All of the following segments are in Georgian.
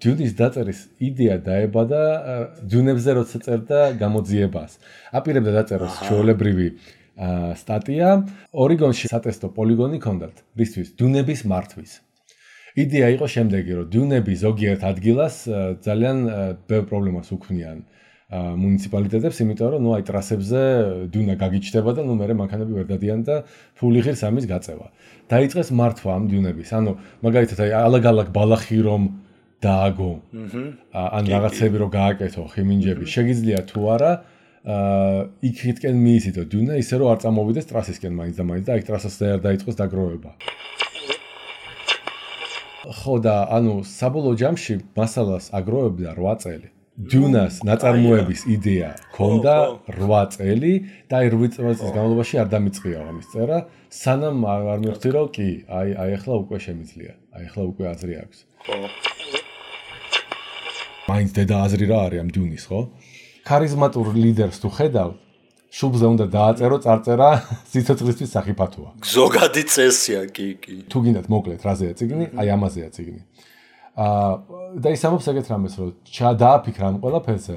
დიუნის დაწერის იდეა დაებადა დიუნებზე როცა წერდა გამოძიებას. აპირებდა დაწეროს ჩვეულებრივი სტატია, ორიგონში სატესტო პოლიგონი ჰქონდათ, რისთვის დიუნების მართვის. იდეა იყო შემდეგი, რომ დიუნები ზოგიერთ ადგილას ძალიან ბევრ პრობლემას უქმნიან მუნიციპალიტეტებს, იმიტომ რომ აი ტრასებზე დიუნა გაგიჩნდება და მე მანქანები ვერ დადიან და ფული ღირს ამის გაწევა. დაიწყეს მართვა ამ დიუნების. ანუ მაგალითად აი ალაგ-ალაგ ბალახი რომ დააგო. ან რაღაცები რომ გააკეთო, ხიმინჯები. შეგიძლია თუ არა იქითკენ მიისიდო დიუნა, ისე რომ არ წამოვიდეს ტრასისკენ მაინც და მაინც და აი ტრასაზე არ დაიწყოს დაგროვება. ხო და ანუ საბოლოო ჯამში მასალას აგროვებდა 8 წელი. დიუნას ნაწარმოების იდეა ჰქონდა 8 წელი და აი 8 წლის განმავლობაში არ დამიწყია ამის წერა, სანამ არ მივხვდი რომ კი, აი ახლა უკვე შემიძლია. აი ახლა უკვე აზრი აქვს. ხო. მაინც დედა აზრი რა არის ამ დიუნის, ხო? ქარიზმატურ ლიდერს თუ ხედავ, შუბლზე უნდა დააწერო წარწერა სიცოცხლისთვის სახიფათოა. ზოგადი წესია, კი. თუ გინდათ მოკლედ რაზეა წიგნი, აი ამაზეა წიგნი. და ის ამბობს ეგეთ რამეს, რომ დააფიქრა ამ ყველაფერზე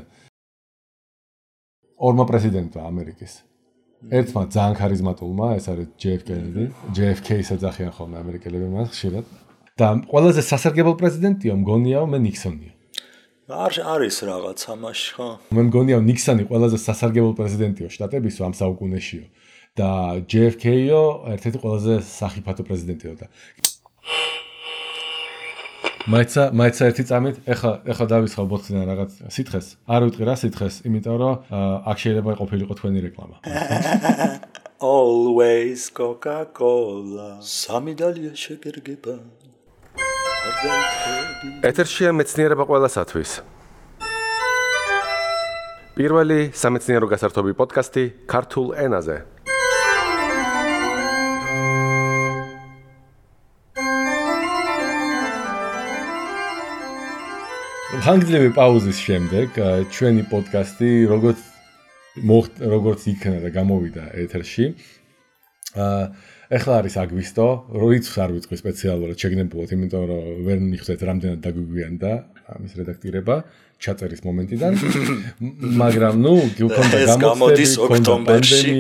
ორმა პრეზიდენტმა ამერიკის. ერთმა ძალიან ქარიზმატულმა, ეს არის JFK-ს ეძახიან ხოლმე ამერიკელები მას ხშირად. და ყველაზე სასარგებლო პრეზიდენტია მგონია მე ნიქსონია. არის რაღაც ამაში, ხო? მე მგონია ნიქსონი ყველაზე სასარგებლო პრეზიდენტიო შტატებისო ამ საუკუნეშიო და JFK-ო ერთ-ერთი ყველაზე სახიფათო პრეზიდენტიო და მაიცა ერთი წამით, ეხლა დავისხავ ბოთლიდან რაღაც სითხეს. არ ვიტყვი რა სითხეს, იმიტომ რომ აქ შეიძლება ყოფილიყო თქვენი რეკლამა. Always Coca-Cola. სამი დალია შეგერგება. ეთერშია მეცნიერება ყველასათვის. პირველი სამეცნიერო გასართობი პოდკასტი ქართულ ენაზე. ხანგრძლივი პაუზის შემდეგ ჩვენი პოდკასტი როგორც იქნა და გამოვიდა ეთერში. ეხლა არის აგვისტო, როიც არ ვიტყვი სპეციალურად შეგნებულად, იმიტომ რომ ვერ მიხვდეთ რამდენად დაგვიგვიანდა ამის რედაქტირება ჩაწერის მომენტიდან. მაგრამ გქონდა გამოდის ოქტომბერში.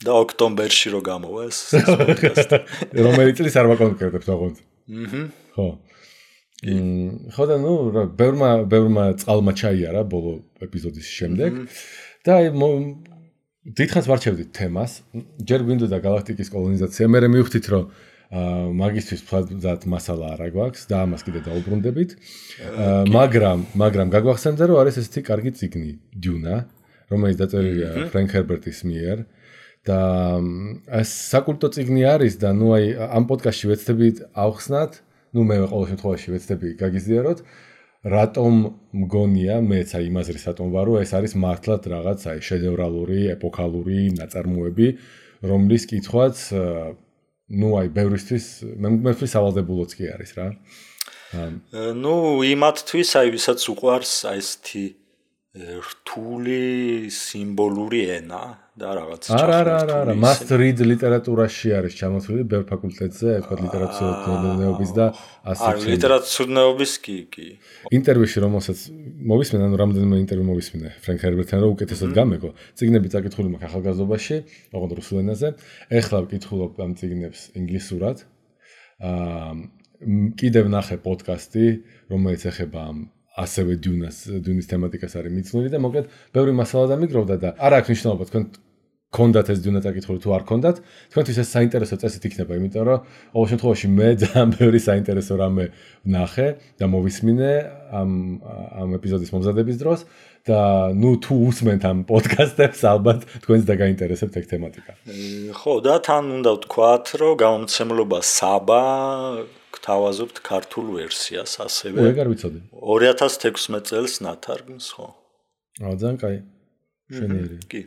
და ოქტომბერში რო გამოვა ეს პოდკასტი. რომელი წლის არ ვაკონკრეტებთ ოღონდ. ხო. ხო და ბევრმა წყალმა ჩაიარა ბოლო ეპიზოდის შემდეგ და დიდხანს ვარჩევდით თემას. ჯერ გვინდოდა galaktikis კოლონიზაცია, მე მივხვდით რომ მაგისტრის ფლად მასალა არ გვაქვს და ამას კიდე დაუბრუნდებით. მაგრამ გაგვახსენდა რომ არის ესეთი კარგი წიგნი დიუნა, რომელიც დაწერილია ფრენკ ჰერბერტის მიერ და ეს საკულტო წიგნი არის და აი ამ პოდკასტში ვეცდებით ავხსნათ, მე ყოველ შემთხვევაში ვეცდები გაგიზიაროთ, რატომ მგონია მეც აი იმაზრის რატომ ვარო, ეს არის მართლად რაღაც აი შედევრალური, ეპოქალური ნაწარმოები, რომლის კითხვაც აი ბევრისთვის მემკვიდრეობის სავალდებულოც კი არის რა. იმათთვის აი ვისაც უყვარს აი ესეთი რთული სიმბოლური ენა და რაღაც არა, must read ლიტერატურაში არის ჩამოთვლილი ბევრ ფაკულტეტზე, თქვა ლიტერატურათმცოდნეობის და ასე. ლიტერატურათმცოდნეობის კი. ინტერვიუში რომელსაც მოვისმენ, ანუ რამდენიმე ინტერვიუ მოვისმინე ფრენკ ჰერბერტთან, რომ უკეთესად გამეკო. წიგნები წაკითხული მაქვს ახალგაზრდობაში, ოღონდ რუსულ ენაზე. ეხლა ვკითხულობ ამ წიგნებს ინგლისურად. კიდევ ნახე პოდკასტი, რომელიც ეხება ამ ასევე დიუნის თემატიკას არის მიცნული და მოკლედ ბევრი მასალა დამიგროვდა და არ აქვს მნიშვნელობა თქვენ გქონდათ ეს დიუნა წაკითხული თუ არ გქონდათ, თქვენთვის ეს საინტერესო წესით იქნება, იმიტომ რომ ყოველ შემთხვევაში მე ძალიან ბევრი საინტერესო რამე ვნახე და მოვისმინე ამ ეპიზოდის მომზადების დროს და თუ უსმენთ ამ პოდკასტებს, ალბათ თქვენს დაგაინტერესებთ ეგ თემატიკა. ხო, და თან უნდა ვთქვათ, რომ გამომცემლობა საბა გთავაზობთ ქართულ ვერსიას ასევე. ეგარ ვიცოდი. 2016 წელს ნათარგმნს, ხო? ძალიან კაი. შენიერი. კი.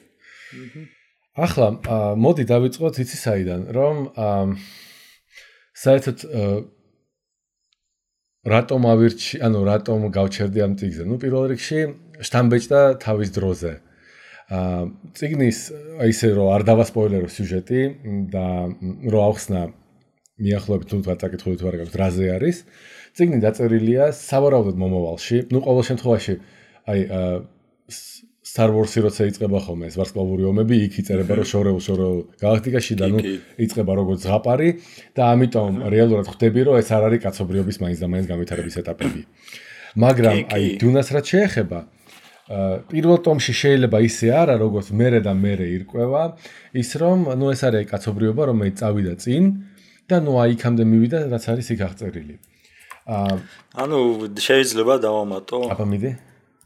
ახლა მოდი დავიწყოთ იცი საიდან, რომ საერთოდ რატომ რატომ გავჩერდი ამ წიგნზე? პირველ რიგში შთამბეჭდა თავის დროზე. წიგნის ისე რომ არ დავასპოილერო სიუჟეტი და რომ ავხსნა მიახლოებით თუ წაკითხული თუ არ გაქვს რაზე არის წიგნი დაწერილია სავარაუდოდ მომავალში. ნუ ყოველ შემთხვევაში აი Star Wars-ი როცა იწყება ხოლმე ეს ვარსკვლავური ომები, იქ იწერება რომ შორეულ გალაქტიკაში და ნუ იწყება როგორც ზღაპარი და ამიტომ რეალურად ხვდები რომ ეს არ არის კაცობრიობის მაინც და მაინც განვითარების ეტაპები. მაგრამ აი დუნას რაც შეეხება პირველ ტომში შეიძლება ისე არა როგორც მერე და მერე ირკვევა ის რომ ნუ ეს არის კაცობრიობა რომელიც წავიდა წინ და ნუ აი იქამდე მივიდა რაც არის იქ აღწერილი. ანუ შეიძლება დავამატო. აბა მიდი.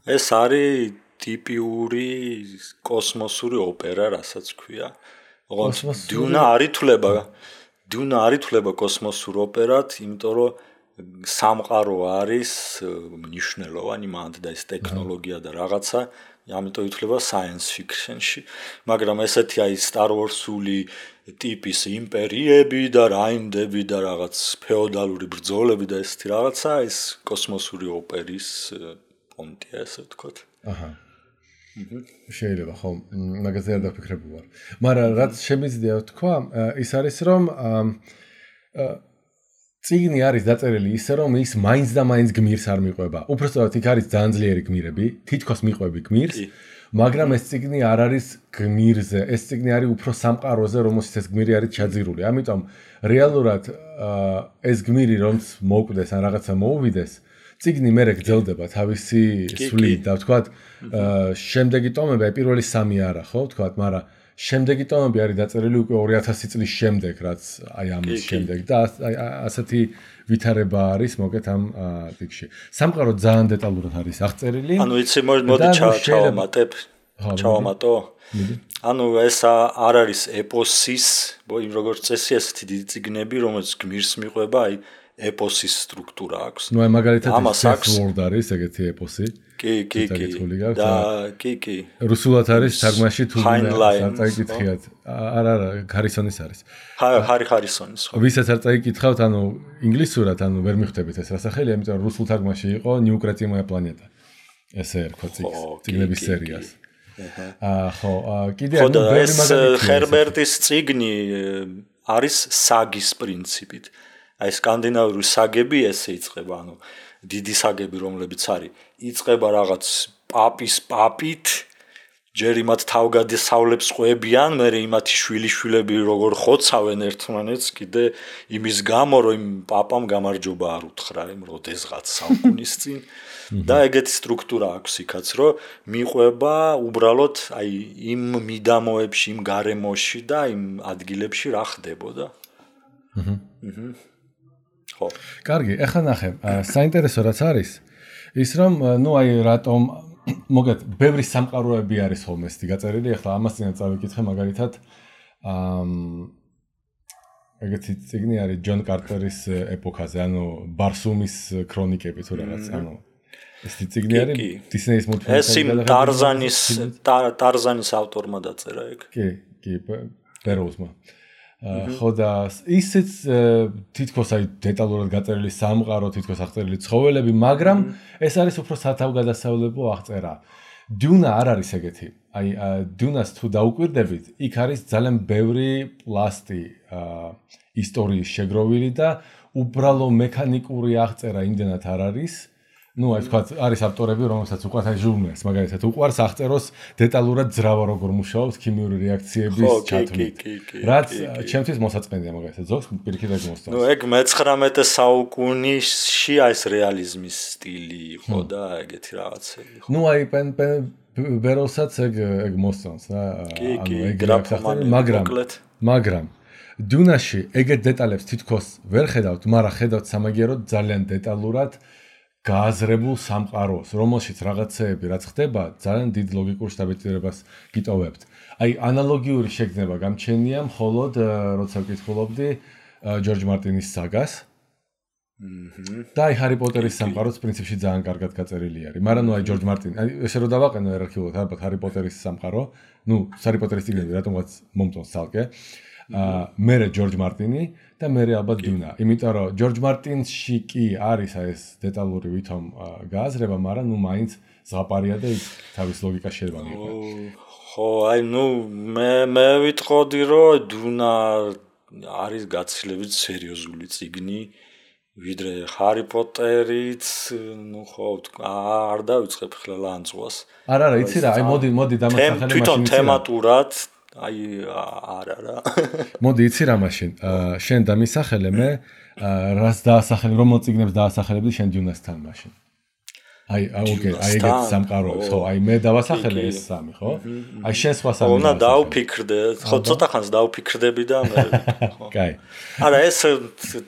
ეს არის ტიპიური კოსმოსური ოპერა, რასაც ქვია. დუნა არითვლება კოსმოსურ ოპერად, იმიტომ რომ სამყარო არის მნიშვნელოვანი მანდ და ეს ტექნოლოგია და რაღაცა, ამიტომ ითვლება science fiction-ში, მაგრამ ესეთი აი Star Wars-ული ტიპის იმპერიები და რაინდები და რაღაც ფეოდალური ბრძოლები და ესეთი რაღაცა, ეს კოსმოსური ოპერის პონტია, ესე ვთქვათ. აჰა. შეიძლება ხო, მაგაზე არ დაფიქრებული ვარ. მაგრამ რაც შემიძლია ვთქვა, ის არის რომ წიგნი არის დაწერილი ისე რომ ის მაინც და მაინც გმირს არ მიყვება. უბრალოდ იქ არის ძალიან ძლიერი გმირები, თითქოს მიყვები გმირს, მაგრამ ეს წიგნი არ არის გმირზე, ეს წიგნი არის უფრო სამყაროზე, რომელშიც ეს გმირი არის ჩაძირული. ამიტომ რეალურად ეს გმირი რომც მოკვდეს ან რაღაცა მოუვიდეს, წიგნი მერე გრძელდება თავისი სვლით და ვთქვათ, შემდეგი ტომები, პირველი 3 არა, ხო, ვთქვათ, მაგრამ შემდეგი ტომები არის დაწერილი უკვე 2000 წლის შემდეგ, რაც აი ამის შემდეგ და ასეთი ვითარება არის მოკეთ ამ ტიქში. სამყარო ძალიან დეტალურად არის აღწერილი. ანუ იცი მოდი ჩავამატო. ანუ ეს არ არის ეპოსის, როგორც წესი ესეთი დიდი წიგნები, რომელიც გმირს მიყვება, აი ეპოსის სტრუქტურა აქვს. ნუ აი მაგალითად Word არის ეგეთი ეპოსი. კი. და კი. რუსულად არის თარგმანში თუ არ წაიკითხიათ. არა, ჰარისონის არის. ჰარისონის. ვისაც არ წაიკითხავთ, ანუ ინგლისურად, ანუ ვერ მიხვდებით ეს რასახელი, ამიტომ რუსულ თარგმანში იყო ნიუკრეტიმოა პლანეტა. ესე ერქვა წიგნების სერიას. ხო, კიდე ანუ ბევრი მაგალითია. ჰერბერტის წიგნი არის საგის პრინციპით. აი სკანდინავიური საგები ესე იწყება, ანუ დიდი საგები რომლებიც არის, იწყება რაღაც პაპის პაპით, ჯერ იმათ თავგადასავლებს ყვებიან, მერე იმათი შვილიშვილები როგორ ხოცავენ ერთმანეთს, კიდე იმის გამო, რომ იმ პაპამ გამარჯობა არ უთხრა იმ როდესღაც საუკუნის წინ და ეგეთი სტრუქტურა აქვს იქაც, რომ მიყვება უბრალოდ აი იმ მიდამოებში, იმ გარემოში და იმ ადგილებში რა ხდებოდა. ხო. კარგი, ეხლა ნახე, საინტერესო რაც არის, ის რომ ნუ აი რატომ მოგეთ, ბევრი სამყაროები არის ხოლმე ესეთი გაწერილი, ეხლა ამას წინათ წავიკითხე მაგალითად ეგეთი წიგნი არის ჯონ კარტერის ეპოქაზე, ანუ ბარსუმის ქრონიკები თუ რაღაც, ანუ ესეთი წიგნი არის დისნეის მულტფილმი. ეს იმ ტარზანის ავტორმა დაწერა ეგ. კი, ბეროუსმა. ხო და ისიც თითქოს აი დეტალურად გაწერილი სამყარო, თითქოს აღწერილი ცხოველები, მაგრამ ეს არის უფრო სათავგადასავლებო აღწერა. დუნა არ არის ეგეთი. აი დუნას თუ დაუკვირდებით, იქ არის ძალიან ბევრი პლასტი ისტორიის შეგროვილი და უბრალო მექანიკური აღწერა იმდენად არ არის. ნუ აი თქვა არის ავტორები, რომელსაც უყვართ აი ჟურნალს, მაგალითად უყვარს აღწეროს დეტალურად ძრავა როგორ მუშაობს ქიმიური რეაქციების ჩათვლით. რაც ჩემთვის მოსაწყენია მაგალითად ზოგს პირიქით ეგ მოსწონს. ნუ ეგ მე-19 საუკუნეში ეს რეალიზმის სტილი იყო და ეგეთი რაღაცები. ნუ აი ბეროსაც ეგ მოსწონს რა. ანუ ეგ გრაფომანი, მაგრამ დუნაში ეგეთ დეტალებს თითქოს ვერ ხედავთ, მაგრამ ხედავთ სამაგიეროდ ძალიან დეტალურად გააზრებულ სამყაროს, რომელშიც რაღაცეები რაც ხდება, ძალიან დიდ ლოგიკურ შთაბეჭდილებას გიტოვებთ. აი ანალოგიური შეგრძნება გამჩენია მხოლოდ როცა ვკითხულობდი ჯორჯ მარტინის საგას. და აი ჰარი პოტერის სამყაროც პრინციპში ძალიან კარგად გაწერილი არის. მაგრამ ნუ აი ჯორჯ მარტინი, აი ესე რომ დავაყენო ერარქიულად, ალბათ ჰარი პოტერის სამყარო, ნუ ჰარი პოტერის წიგნები რატომღაც მომწონს ცალკე. მერე ჯორჯ მარტინი და მერე ალბათ დუნა. იმიტომ რომ ჯორჯ მარტინში კი არის ეს დეტალური ვითომ გააზრება, მაგრამ ნუ მაინც ზღაპარია და თავის ლოგიკა შეიძლება მიიღო. ხო, აი ნუ მე ვიტყოდი რომ დუნა არის გაცილებით სერიოზული წიგნი, ვიდრე ჰარი პოტერიც, ნუ ხო, არ დავიწყებ ხლა ლანძღვას. არა, იცი რა, აი მოდი დამასახელე მაშინ. თვითონ თემატურად, აი არა. მოდი იცი რა მაშინ. შენ დამისახელე მე რას დაასახელე, რომელ წიგნებს დაასახელებდი შენ დიუნასთან მაშინ. აი ეგეთ სამყაროებს, ხო, აი მე დავასახელე ეს სამი, ხო? აი შენ სხვა სამი. უნდა დავფიქრდე, ხო, ცოტა ხანს დავფიქრდები და მე ხო. კაი. არა, ეს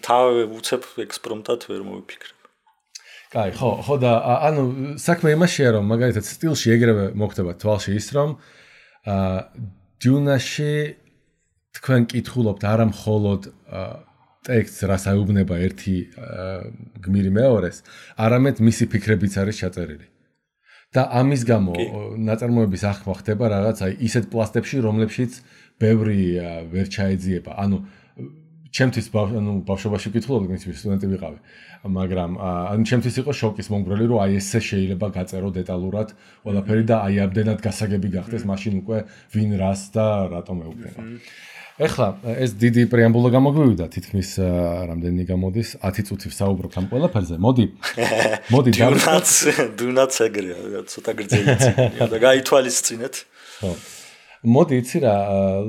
თავი უცებ ექსპრომტად ვერ მოვიფიქრებ. კაი, ხო და ანუ საქმე იმაშია რომ მაგალითად სტილში ეგრევე მოხდება თვალში ის რომ დიუნაში თქვენ კითხულობთ არა მხოლოდ ტექსტს რაც აუბნება ერთი გმირი მეორეს, არამედ მისი ფიქრებიც არის ჩაწერილი. და ამის გამო ნაწარმოების ახმა ხდება რაღაც აი ისეთ პლასტებში, რომლებშიც ბევრი ვერ ჩაეძიება. ანუ ჩემთვის ბავშვობაში ვკითხულობდი, მის სტუდენტი ვიყავი. მაგრამ ანუ ჩემთვის იყო შოკის მომგვრელი, რომ აი ესე შეიძლება გაწერო დეტალურად ყველაფერი და აი ამდენად გასაგები გახდეს, მაშინ უკვე ვინ რას და რატომ ეუბნება. ეხლა ეს დიდი პრეამბულა გამოგვივიდა, თითქმის რამდენი გამოდის 10 წუთი ვსაუბრობთ ამ ყველაფერზე. მოდი დუნაც ეგრეა, ცოტა გრძელი წიგნია და გაითვალისწინეთ. ხო. მოდი იცი რა,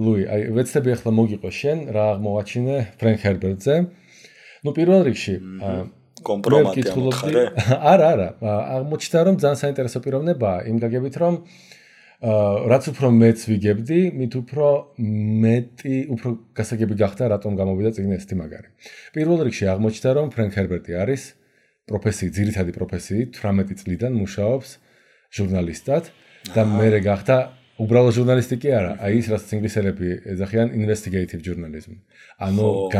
ლუი, აი ვეცდები ახლა მოგიყო შენ რა აღმოვაჩინე ფრენკ ჰერბერტზე. ნუ პირველ რიგში კომპრომატი ამოთხარე. არა, აღმოჩნდა რომ ძალიან საინტერესო პიროვნებაა, იმ გაგებით რომ რაც უფრო მეც ვიგებდი, მით უფრო გასაგები გახდა რატომ გამოვიდა წიგნი ესეთი მაგარი. პირველ რიგში აღმოჩნდა რომ ფრენკ ჰერბერტი არის ძირითადი პროფესიით 18 წლიდან მუშაობს ჟურნალისტად და მერე გახდა უბრალოდ ჟურნალისტი კი არა, აი ის რაც ინგლისელები ეძახიან investigative journalism. ანუ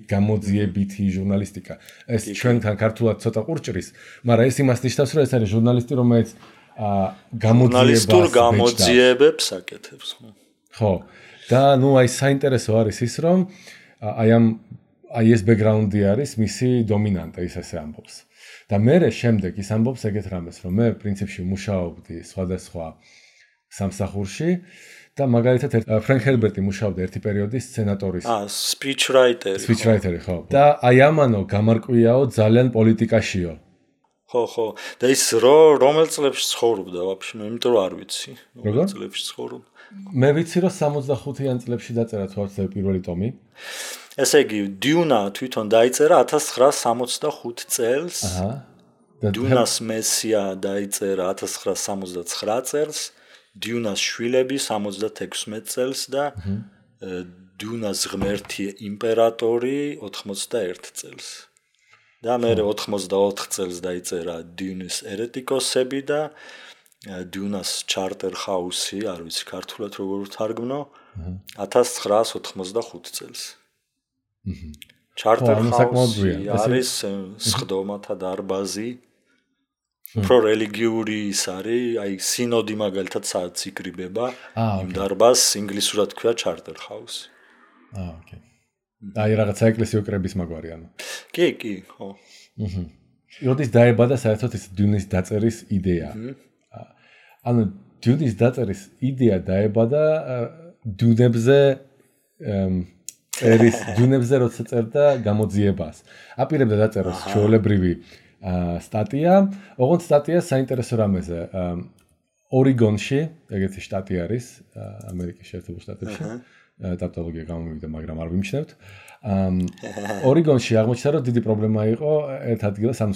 გამოძიებითი ჟურნალისტიკა. ეს ჩვენთან ქართულად ცოტა ყურჭრის, მაგრამ ეს იმას ნიშნავს, რომ ეს არის ჟურნალისტი, რომელიც გამოძიებებს აკეთებს. ხო. და ნუ აი საინტერესო არის ის, რომ აი ეს ბექგრაუნდი არის მისი დომინანტა, ის ასე ამბობს. და მერე შემდეგ ის ამბობს ეგეთ რამეს, რომ მე პრინციპში მუშაობდი სხვადასხვა სამსახურში და მაგალითად ფრენკ ჰერბერტი მუშაობდა ერთი პერიოდი სცენატორის სპიჩრაიტერი ხო და აი ამანო გამარკვიაო ძალიან პოლიტიკაშიო ხო და ის რომელ წლებში ცხოვრობდა ვაფშე მე იმიტომ რომ არ ვიცი რომელ წლებში ცხოვრობდა მე ვიცი რომ 65-იან წლებში დაწერა თვალსაჩინო პირველი ტომი ესე იგი დიუნა თვითონ დაიწერა 1965 წელს დიუნას მესია დაიწერა 1969 წელს დიუნას შვილები 76 წელს და დიუნას ღმერთი იმპერატორი 81 წელს. და მე 84 წელს დაიწერა დიუნის ერეტიკოსები და დიუნას ჩარტერ ჰაუსი, არ ვიცი ქართულად როგორ ვთარგმნო, 1985 წელს. ჩარტერ ჰაუსი არის სხდომათა დარბაზი. უფრო რელიგიური ის არის, აი სინოდი მაგალითად სადაც იკრიბება, იმ დარბაზს ინგლისურად ქვია ჩარტერ ჰაუსი. ოკეი. აი რაღაცა ეკლესიო კრების მაგვარი ანუ. კი, ხო. როდის დაებადა საერთოდ ეს დიუნის დაწერის იდეა. ანუ დიუნის დაწერის იდეა დაებადა დიუნებზე როცა წერდა გამოძიებას. აპირებდა დაწეროს ჩვეულებრივი სტატია, ოღონდ სტატია საინტერესო რამეზე. ორიგონში, ეგეთი შტატი არის, ამერიკის შეერთებულ შტატებში. ტავტოლოგია გამომივიდა, მაგრამ არ ვიმჩნევთ. ორიგონში აღმოჩნდა, რომ დიდი პრობლემა იყო ერთ ადგილას, ანუ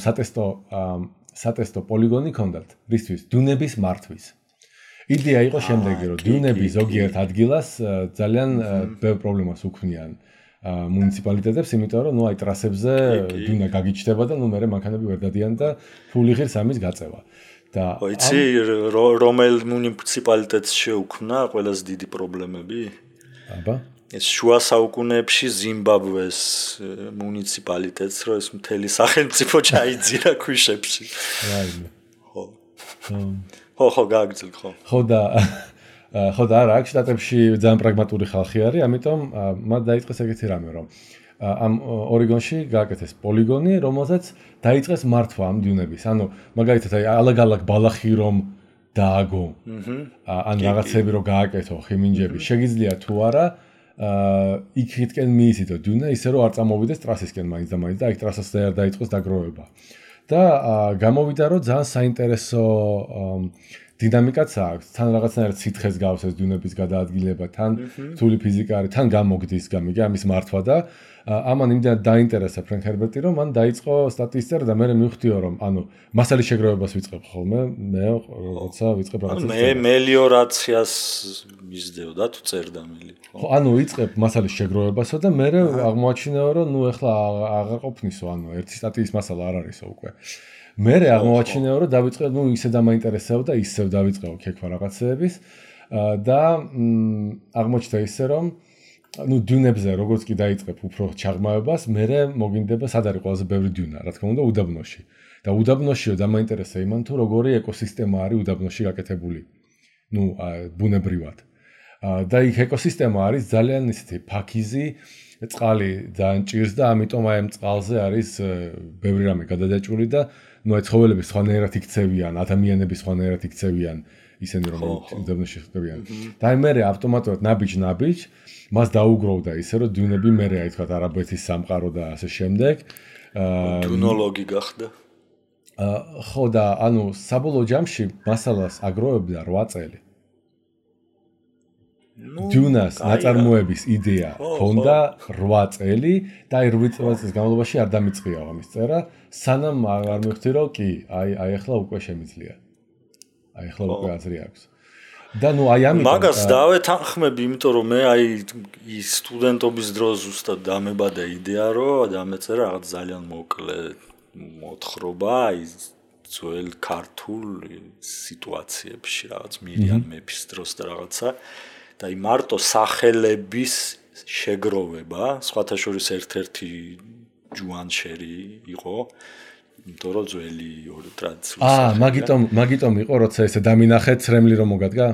სატესტო პოლიგონი ჰქონდათ, რისთვის დიუნების მართვის. იდეა იყო შემდეგი, რომ დიუნები ზოგიერთ ადგილას ძალიან ბევრ პრობლემას უქმნიან. მუნიციპალიტეტებს, იმიტომ რომ აი ტრასებზე დიუნა გაგიჩნდება და მე მანქანები ვერ დადიან და ფული ღირს ამის გაწევა. და იცი რომელ მუნიციპალიტეტს შეუქმნა ყველაზე დიდი პრობლემები? აბა ეს შუა საუკუნეებში ზიმბაბვეს მუნიციპალიტეტს რო ეს მთელი სახელმწიფო ჩაიძირა ქვიშებში. ხო გააგრძელ ხო. ხო და არა, აქ შტატებში ძალიან პრაგმატული ხალხი არის, ამიტომ მათ დაიწყეს ეგეთი რამე, რომ ამ ორიგონში გააკეთეს პოლიგონი, რომელსაც დაიწყეს მართვა ამ დიუნების. ანუ მაგალითად აი ალაგ-ალაგ ბალახი რომ დააგო. ან რაღაცები რომ გააკეთო, ხიმინჯები, შეგიძლია თუ არა იქითკენ მიისიდო დუნა ისე რომ არ წამოვიდეს ტრასისკენ მაინც და მაინც და აი ტრასას არ დაიწყოს დაგროვება. და გამოვიდა რომ ძალიან საინტერესო დინამიკაც აქვს. თან რაღაცნაირად სითხეს გავს ეს დუნების გადაადგილება, თან რთული ფიზიკა არის, თან გამოგდის გამიგე ამის მართვა და ამან იმდენად დაინტერესა ფრენკ ჰერბერტი რომ მან დაიწყო სტატისტიკა და მე მივხვდიო რომ ანუ მასალის შეგროვებას ვიწყებ ხოლმე მე როცა ვიწყებ რაღაცას მე მელიორაციას მისდევდა თუ წერდა მელი ხო ანუ ვიწყებ მასალის შეგროვებასო და მე აღმოაჩინეო რომ ნუ ეხლა აღარ ყოფნისო ანუ ერთი სტატიის მასალა არ არისო უკვე მე აღმოაჩინეო რომ დავიწყე ნუ ისე დამაინტერესებო და ისევ დავიწყეო ქექვა რაღაცეების და აღმოჩნდა ისე რომ ну დუნებზე როგორც კი დაიწყებ უფრო ჩაღმავებას, მე მოგინდება სად არის ყველაზე ბევრი დუნა, რა თქმა უნდა, უდაბნოში. და უდაბნოშიო დამაინტერესა იმან თუ როგორი ეკოსისტემა არის უდაბნოში გაკეთებული. ну, ბუნებრივად. და იქ ეკოსისტემა არის ძალიან ისეთი ფაქიზი, წყალი ძალიან ჭირს და ამიტომ აი ამ წყალზე არის ბევრი რამე გადადაჭრილი და ну აი ცხოველები სხვანაირად იქცევიან, ადამიანები სხვანაირად იქცევიან, ისინი რომ უდაბნოში ხდებიან. და აი მე ავტომატურად ნაბიჯ მას დაუგროვდა ისე რომ დუნები მე აი თქვა არაბეთის სამყარო და ასე შემდეგ. დუნოლოგი გახდა. ხო და ანუ საბოლოო ჯამში მასალას აგროვებდა 8 წელი. დუნას ნაწარმოების იდეა ჰქონდა 8 წელი და აი 8 წლის განმავლობაში არ დამიწყია ამის წერა, სანამ არ მივხვდი რომ კი, აი ახლა უკვე შემიძლია. აი ახლა უკვე აზრი აქვს. და ნუ აი ამიტომ მაგას დავეთანხმები, იმიტომ რომ მე აი ის სტუდენტობის დროს ზუსტად დამებადა იდეა, რომ დამეწერა რაღაც ძალიან მოკლე მოთხრობა აი ძველ ქართულ სიტუაციებში, რაღაც მირიან მეფის დროს და რაღაცა და აი მარტო სახელების შეგროვება, სხვათა შორის ერთ-ერთი ჯუანშერი იყო, იმიტომ რომ ძველი ორი ტრადიციული მაგიტომ იყო, როცა ესე დამინახე ცრემლი რომ მოგადგა?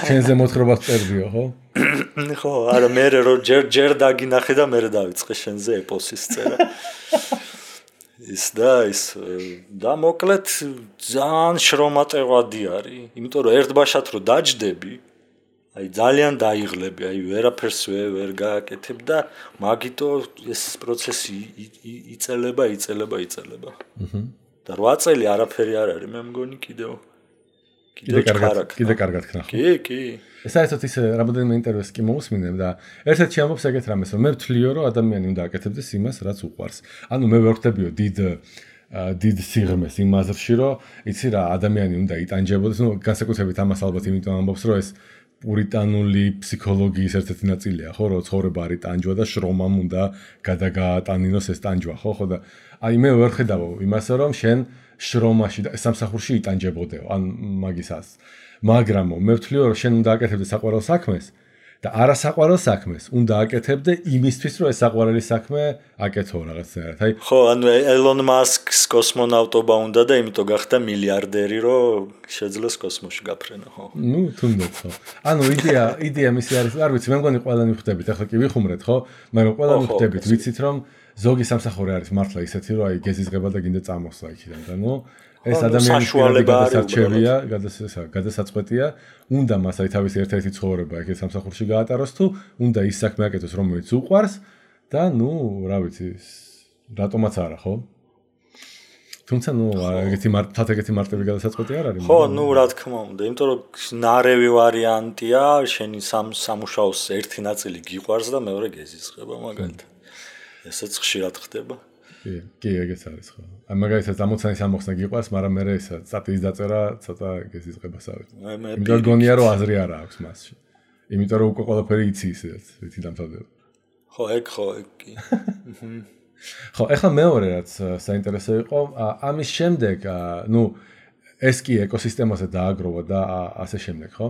ჩვენზე მოთხრობას წერდიო, ხო? ხო, არა მე რომ ჯერ დაგინახე და მე დავიწყე შენზე ეპოსის წერა. და მოკლედ ძალიან შრომატევადი არის, იმიტომ რომ ერთბაშად რომ დაჯდები, აი ძალიან დაიღლები, აი ვერაფერს ვერ გააკეთებ და მაგიტო ეს პროცესი იწელება. და 8 წელი არაფერი არ არის, მე მგონი კიდევ კარგად ქნა. კი. საერთოდ ის რამოდენიმე ინტერვიუს კი მოусმინებ და ერთ-ერთი ამბობს ეგეთ რამეს, რომ მე ვთვლიო, რომ ადამიანი უნდა აკეთებდეს იმას, რაც უყვარს. ანუ მე ვერ ვხვდებიო დიდ სიღრმეს იმ აზრში, რომ იცი რა, ადამიანი უნდა იტანჯებოდეს, ну, განსაკუთრებით ამას ალბათ იმიტომ ამბობს, რომ ეს პურიტანული ფსიქოლოგიის ერთ-ერთი ნაწილია, ხო, რომ ცხოვრება არის ტანჯვა და შრომამ უნდა გადაგაატანინოს ეს ტანჯვა, ხო და აი მე ვერ ხედავ იმას, რომ შენ შრომაში და სამსახურში იტანჯებოდეო, ან მაგისას. მაგრამ მე ვთვლიო, რომ შენ უნდა აკეთებდეს საყვარელ საქმეს და არასაყვარელ საქმეს უნდა აკეთებდე იმისთვის, რომ ეს საყვარელი საქმე აკეთო რაღაცნაირად. აი ხო, ანუ ელონ მასკს კოსმონავტობა უნდა და იმიტომ გახდა მილიარდერი, რომ შეძლოს კოსმოსში გაფრენა, ხო? ну, თუნდაც ხო. ანუ იდეა მისი არის, არ ვიცი, მე მგონი ყველანი ვხვდებით, ახლა კი ვიხუმრეთ, ხო? მაგრამ ყველანი ვხვდებით, ვიცით რომ ზოგი სამსახური არის მართლა ისეთი, რომ აი გეზიზღება და გინდა წამოსვლა იქიდან და ნუ ეს ადამიანის გადასაწყვეტია, უნდა მას აი თავისი ერთ-ერთი ცხოვრება ეგ სამსახურში გაატაროს თუ უნდა ის საქმე აკეთოს, რომელიც უყვარს და ნუ, რა ვიცი, რატომაც არა, ხო? თუმცა ნუ ეგეთი მარტივი გადასაწყვეტი არ არის. ხო, ნუ რა თქმა უნდა, იმიტომ რომ ნარევი ვარიანტია, შენი სამუშაოს ერთი ნაწილი გიყვარს და მეორე გეზიზღება მაგალითად. ესეც ხშირად ხდება. კი, ეგეც არის ხო. აი მაგალითად ამოცანის ამოხსნა გიყვარს, მაგრამ მე ეს სტატიის დაწერა ცოტა გეზიზღებას არის. იმიტომ გონია რომ აზრი არა აქვს მასში. იმიტომ რომ უკვე ყველაფერი იცი ისედაც, რითი დამთავრდება. ხო, ეგ კი. ხო, ეხლა მეორე რაც საინტერესო იყო, ამის შემდეგ, ну, ეს კი ეკოსისტემაზე დააგროვა და ასე შემდეგ, ხო?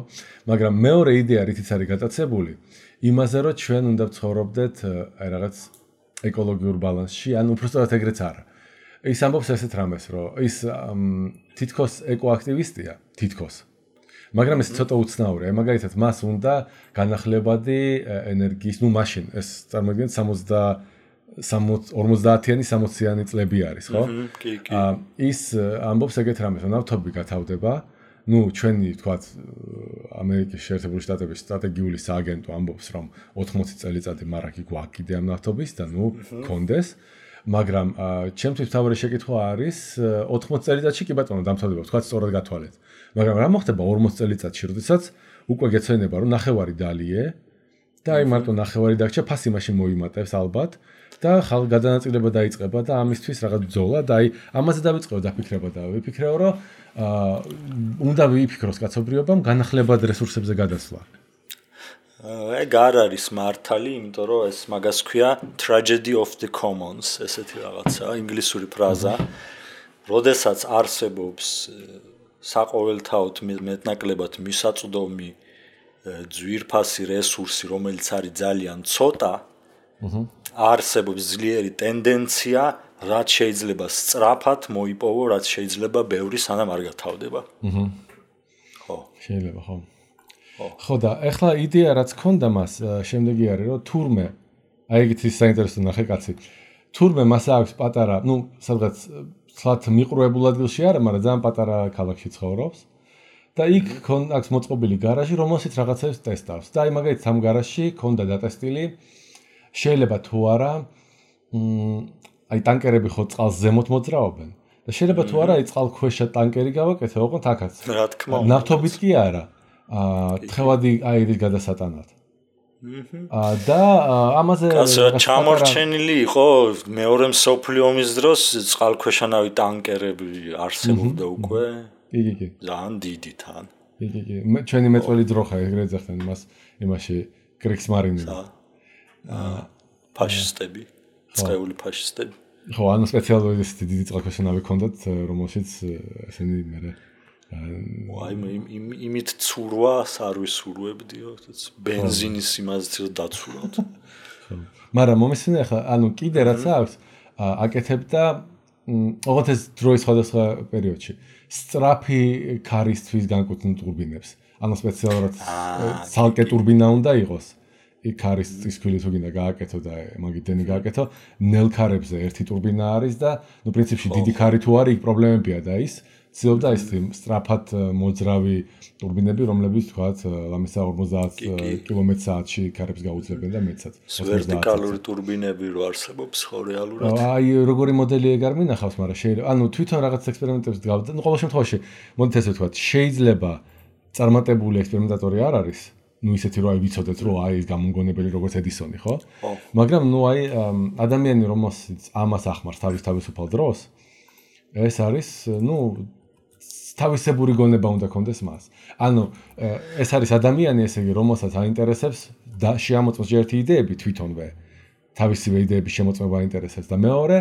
მაგრამ მეორე იდეა რითიც არის გატაცებული, იმაზე რომ ჩვენ უნდა ვცხოვრობდეთ აი რაღაც ეკოლოგიურ ბალანსში, ან უბრალოდ ეგრეც არა. ის ამბობს ესეთ რამეს, რომ ის თითქოს ეკოაქტივისტია, თითქოს. მაგრამ ეს ცოტა უცნაურია, მაგალითად, მას უნდა განახლებადი ენერგიის, ну, მაშინ ეს წარმოიდგინეთ 50-იანი 60-იანი წლები არის, ხო? კი. ის ამბობს ეგეთ რამეს, რომ ნავთობი გათავდება ნუ ჩვენი თქვათ ამერიკის შეერთებული შტატების სტრატეგიული სააგენტო ამბობს რომ 80 წელიწადი მარაკი გვაქვს კიდე ამ ნავთობის და ნუ კონდეს მაგრამ ჩემთვის თავი შეკითხვა არის 80 წელიწადში კი ბატონო დამთავრდება თქვათ სწორად გათვალეთ მაგრამ რა მოხდება 40 წელიწადში როდესაც უკვე გეცვენება რომ ნახევარი დალიე და აი მარტო ნახევარი დაგჭა ფასი მაშინ მოიმატებს ალბათ და ხალხ გადანაწილება დაიწყება და ამისთვის რაღაც ბრძოლა და აი ამაზე დავიწყო დაფიქრება და ვიფიქრეო რომ უნდა ვიფიქროს კაცობრიობამ განახლებად რესურსებზე გადასვლა. ეგ არ არის მართალი, იმიტომ რომ ეს მაგას ქვია tragedy of the commons, ესეთი რაღაცა, ინგლისური ფრაზა. როდესაც არსებობს საყოველთაოდ მეტნაკლებად მისაწვდომი ძვირფასი რესურსი, რომელიც არის ძალიან ცოტა, არსებობს ძლიერი ტენდენცია რაც შეიძლება სწრაფად მოიპოვო, რაც შეიძლება ბევრი სანამ არ გათავდება. ხო. შეიძლება, ხო. ხო და ახლა იდეა რაც ქონდა მას შემდეგი არის რომ თურმე აი ეგეთი საინტერესო ნახე კაცი. თურმე მას აქვს პატარა, ნუ სადღაც სლათ მიყრუებულ ადგილში არა, მაგრამ ძალიან პატარა ქალაქში ცხოვრობს. და იქ აქვს მოწყობილი გარაჟი, რომელშიც რაღაცებს ტესტავს. და აი მაგალითად ამ გარაჟში ქონდა დატესტილი შეიძლება თუ არა აი ტანკერები ხო წყალს ზემოთ მოძრაობენ და შეიძლება თუ არა აი წყალქვეშა ტანკერი გავაკეთე ოღონდ აქაც რა თქმა უნდა ნავთობით კი არა თხევადი აირის გადასატანად და ამაზე ჩამორჩენილი იყო მეორე მსოფლიო ომის დროს წყალქვეშანავი ტანკერები არსებობდა უკვე კი ძალიან დიდი თან კი ჩვენი მეწველი ძროხა ეგრეთ ზახთან იმას იმაში კრიქსმარინი ფაშისტები წეული ფაშისტები. ხო, ანუ სპეციალური დიდი წყალქვეშანავი ჰქონდათ, რომელშიც ესენი მე აი იმით ცურვას არ ვისურვებდიო, ბენზინის იმაზე დაცურავთ. ხო. მაგრამ მომისმინე ახლა, ანუ კიდე რაც აქვს, აკეთებდა ოღონდ ეს დროის სხვადასხვა პერიოდში. სწრაფი ქარისთვის განკუთვნილ ტურბინებს. ანუ სპეციალურად ცალკე ტურბინა უნდა იყოს. იქ არის წისქვილი თუ გინდა გააკეთო და მაგიტენი გააკეთო ნელ ქარებზე ერთი ტურბინა არის და ნუ პრინციპში დიდი ქარი თუ არის იქ პრობლემებია და ის ცდილობდა ის სწრაფად მოძრავი ტურბინები რომლებიც თქვათ ლამისა 50 კმ/სთ-ში ქარებს გაუძლებენ და მეცად ვერტიკალური ტურბინები რო არსებობს ხო რეალურად აი როგორი მოდელი ეგ არ მინახავს მაგრამ შეიძლება ანუ თვითონ რაღაც ექსპერიმენტებს დგავდა ნუ ყოველ შემთხვევაში მოდით ესე ვთქვათ შეიძლება წარმატებული ექსპერიმენტატორი არ არის ну ისეთი რომ აი ვიცოდეთ რომ აი ეს გამომგონებელი როგორც ედისონი ხო? მაგრამ ну აი ადამიანი რომელსაც ამას ახმარს თავისუფალ დროს ეს არის ну თავისებური გონება უნდა კონდეს მას. ანუ ეს არის ადამიანი ესე იგი რომელსაც აინტერესებს და შეამოწმოს ერთი იდეები თვითონვე თავისივე იდეების შემოწმება აინტერესებს და მეორე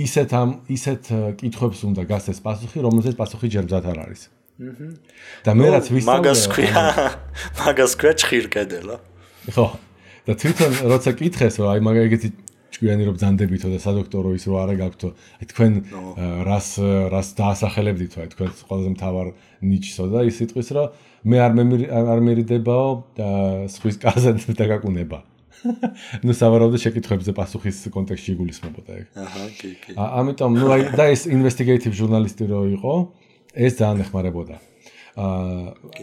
ისეთ კითხვებს უნდა გასცეს პასუხი რომელზეც პასუხი ჯერ მზად არ არის. და მე რაც ვისწავლე მაგას ქვია ჭხირკედელა. ხო. და თვითონ როცა კითხეს რომ აი მაგალითი ჭკვიანი რომ ბძანდებითო და სადოქტორო ის რო არა გაქვთო აი თქვენ რას დაასახელებდით აი თქვენ ყველაზე მთავარ ნიჩსო და ის სიტყვის რომ მე არ მერიდებაო სხვის კარზე დაგაკუნება. ну სავარაუდოდ შეკითხვებზე პასუხის კონტექსტში იგულისხმებოდა ეგ. აჰა, კი. ამიტომ ну აი და ეს investigative journalist რო იყო ეს ძალიან ეხმარებოდა.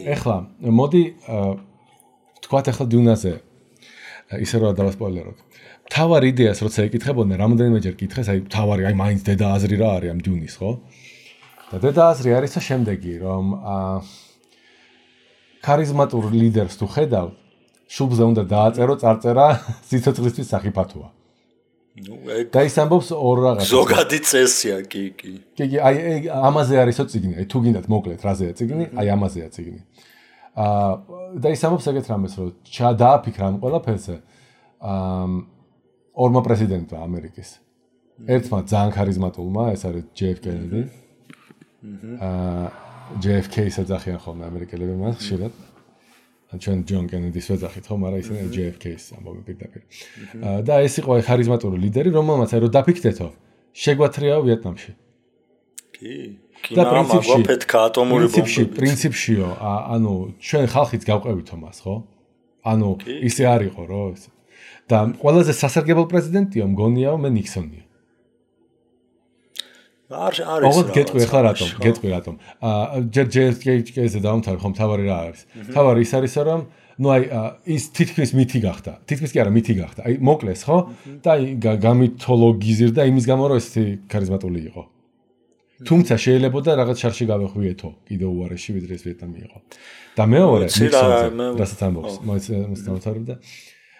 ეხლა მოდი თქვათ ახლა დუნაზე ისე რომ დავასპოილეროთ. თავარი იდეას როცა ეკითხებოდნენ, რამოდენიმეჯერ კითხეს, აი თავარი, აი მაინც დედა აზრი რა არის ამ დუნის, ხო? და დედა აზრი არის შემდეგი, რომ ქარიზმატურ ლიდერს თუ ხედავ, შუბზე უნდა დააწერო წარწერა სიცოცხლისთვის საფათოა. და ის ამბობს ორ რაღაცას. ზოგადი წესია, კი. კი, აი ამაზე არისო წიგნი, აი თუ გინდათ მოკლედ რაზეა წიგნი, აი ამაზეა წიგნი. და ის ამბობს ეგეთ რამეს, რომ დააფიქრა ამ ყველაფერზე. ორმა პრეზიდენტმა ამერიკის. ერთმა ძალიან ქარიზმატულმა, ეს არის JF Kennedy. JFK-ს ეძახიან ხოლმე ამერიკელები მას ხშირად. ჩვენ ჯონ კენედის ვეძახით ხო, მაგრამ ისინი JFK-ს ამბობენ პირდაპირ. და ეს იყო ქარიზმატული ლიდერი, რომელმაც აი რომ დაფიქრდეთო, შეგვათრიაო ვიეტნამში. კი. და პრინციპში ატომური ბომბები. პრინციპშიო, ანუ ჩვენ ხალხიც გავყევითო მას, ხო? ანუ ისე არ იყო, რო და ყველაზე სასარგებლო პრეზიდენტიო მგონიაო მე ნიქსონია. არის ოღონდ გეტყვი ახლა რატომ ჯერ JFK-ზე დავამთავრე ხომ თავარი რა არის თავარი ის არის რომ ну აი ის თითქმის მითი გახდა თითქმის კი არა მითი გახდა აი მოკლეს ხო და აი გამითოლოგიზირდა იმის გამო რომ ესეთი ქარიზმატული იყო თუმცა შეიძლება რაღაც შარში გავეხვიეთო კიდევ უარეში ვიდრე ეს ვიეტნამი იყო და მეორე რასაც ამბობს მოიცავდა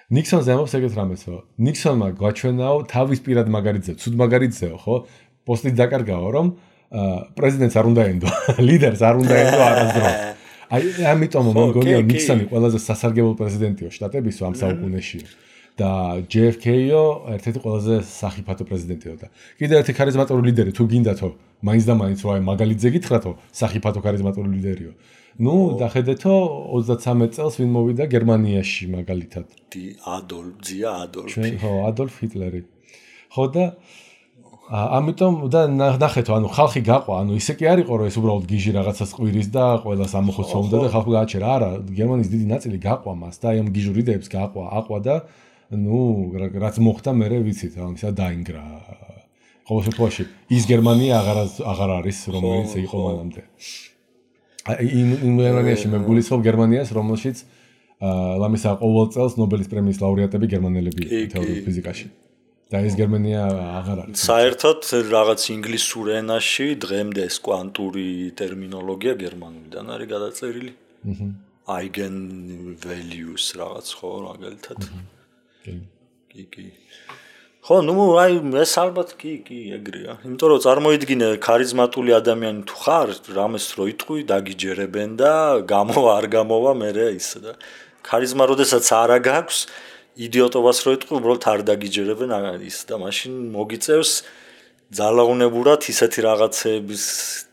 ნიქსონზე ამბობს ეგეთ რამეს რომ ნიქსონმა გვაჩვენაო თავის პირად მაგარიტზე ცუდ მაგარიტზეო ხო პოსტით დაკარგაო რომ პრეზიდენტს არ უნდა ენდო ლიდერს არ უნდა ენდო არასდროს აი ამიტომ მოგონია ნიქსონი ყველაზე სასარგებლო პრეზიდენტიო შტატებისო ამ საუკუნეში და JFK-ო ერთ-ერთი ყველაზე სახიფათო პრეზიდენტიო და კიდევ ერთი ქარიზმატული ლიდერი თუ გინდათო მაინც და მაინც რა მაგალითზე გითხრათო სახიფათო ქარიზმატული ლიდერიო ну დახედეთო 33 წელს ვინ მოვიდა გერმანიაში მაგალითად ადოლფი ხო ადოლფ ჰიტლერი ხო და ამიტომ და ნახეთო ანუ ხალხი გაყვა ანუ ისე კი არ იყო რომ ეს უბრალოდ გიჟი რაღაცას ყვირის და ყველას ამოხოცავდა და ხალხი გააჩერა არა გერმანიის დიდი ნაწილი გაყვა მას და აი ამ გიჟურ იდეებს აყვა და ну რაც მოხდა მე ვიცით ანუ ისა დაინგრა ყოველ შემთხვევაში ის გერმანია აღარ არის რომელიც იყო მანამდე იმ გერმანიაში მე გულისხმობ გერმანიას რომელშიც ლამისა ყოველ წელს ნობელის პრემიის ლაურეატები გერმანელები თეორიულ ფიზიკაში და ეს გერმანია აღარ არის საერთოდ რაღაც ინგლისურ ენაში დღემდე ეს კვანტური ტერმინოლოგია გერმანულიდან არის გადაწერილი eigen values რაღაც ხო მაგალითად კი ხო ნუ აი ეს ალბათ კი ეგრეა იმიტომ რომ წარმოიდგინე ქარიზმატული ადამიანი თუ ხარ რამეს რო იტყვი დაგიჯერებენ და არ გამოვა მე ისე და ქარიზმა როდესაც არა გაქვს იდიოტობას რო იტყვი უბრალოდ არ დაგიჯერებენ ის და მაშინ მოგიწევს ძალაუნებურად ისეთი რაღაცების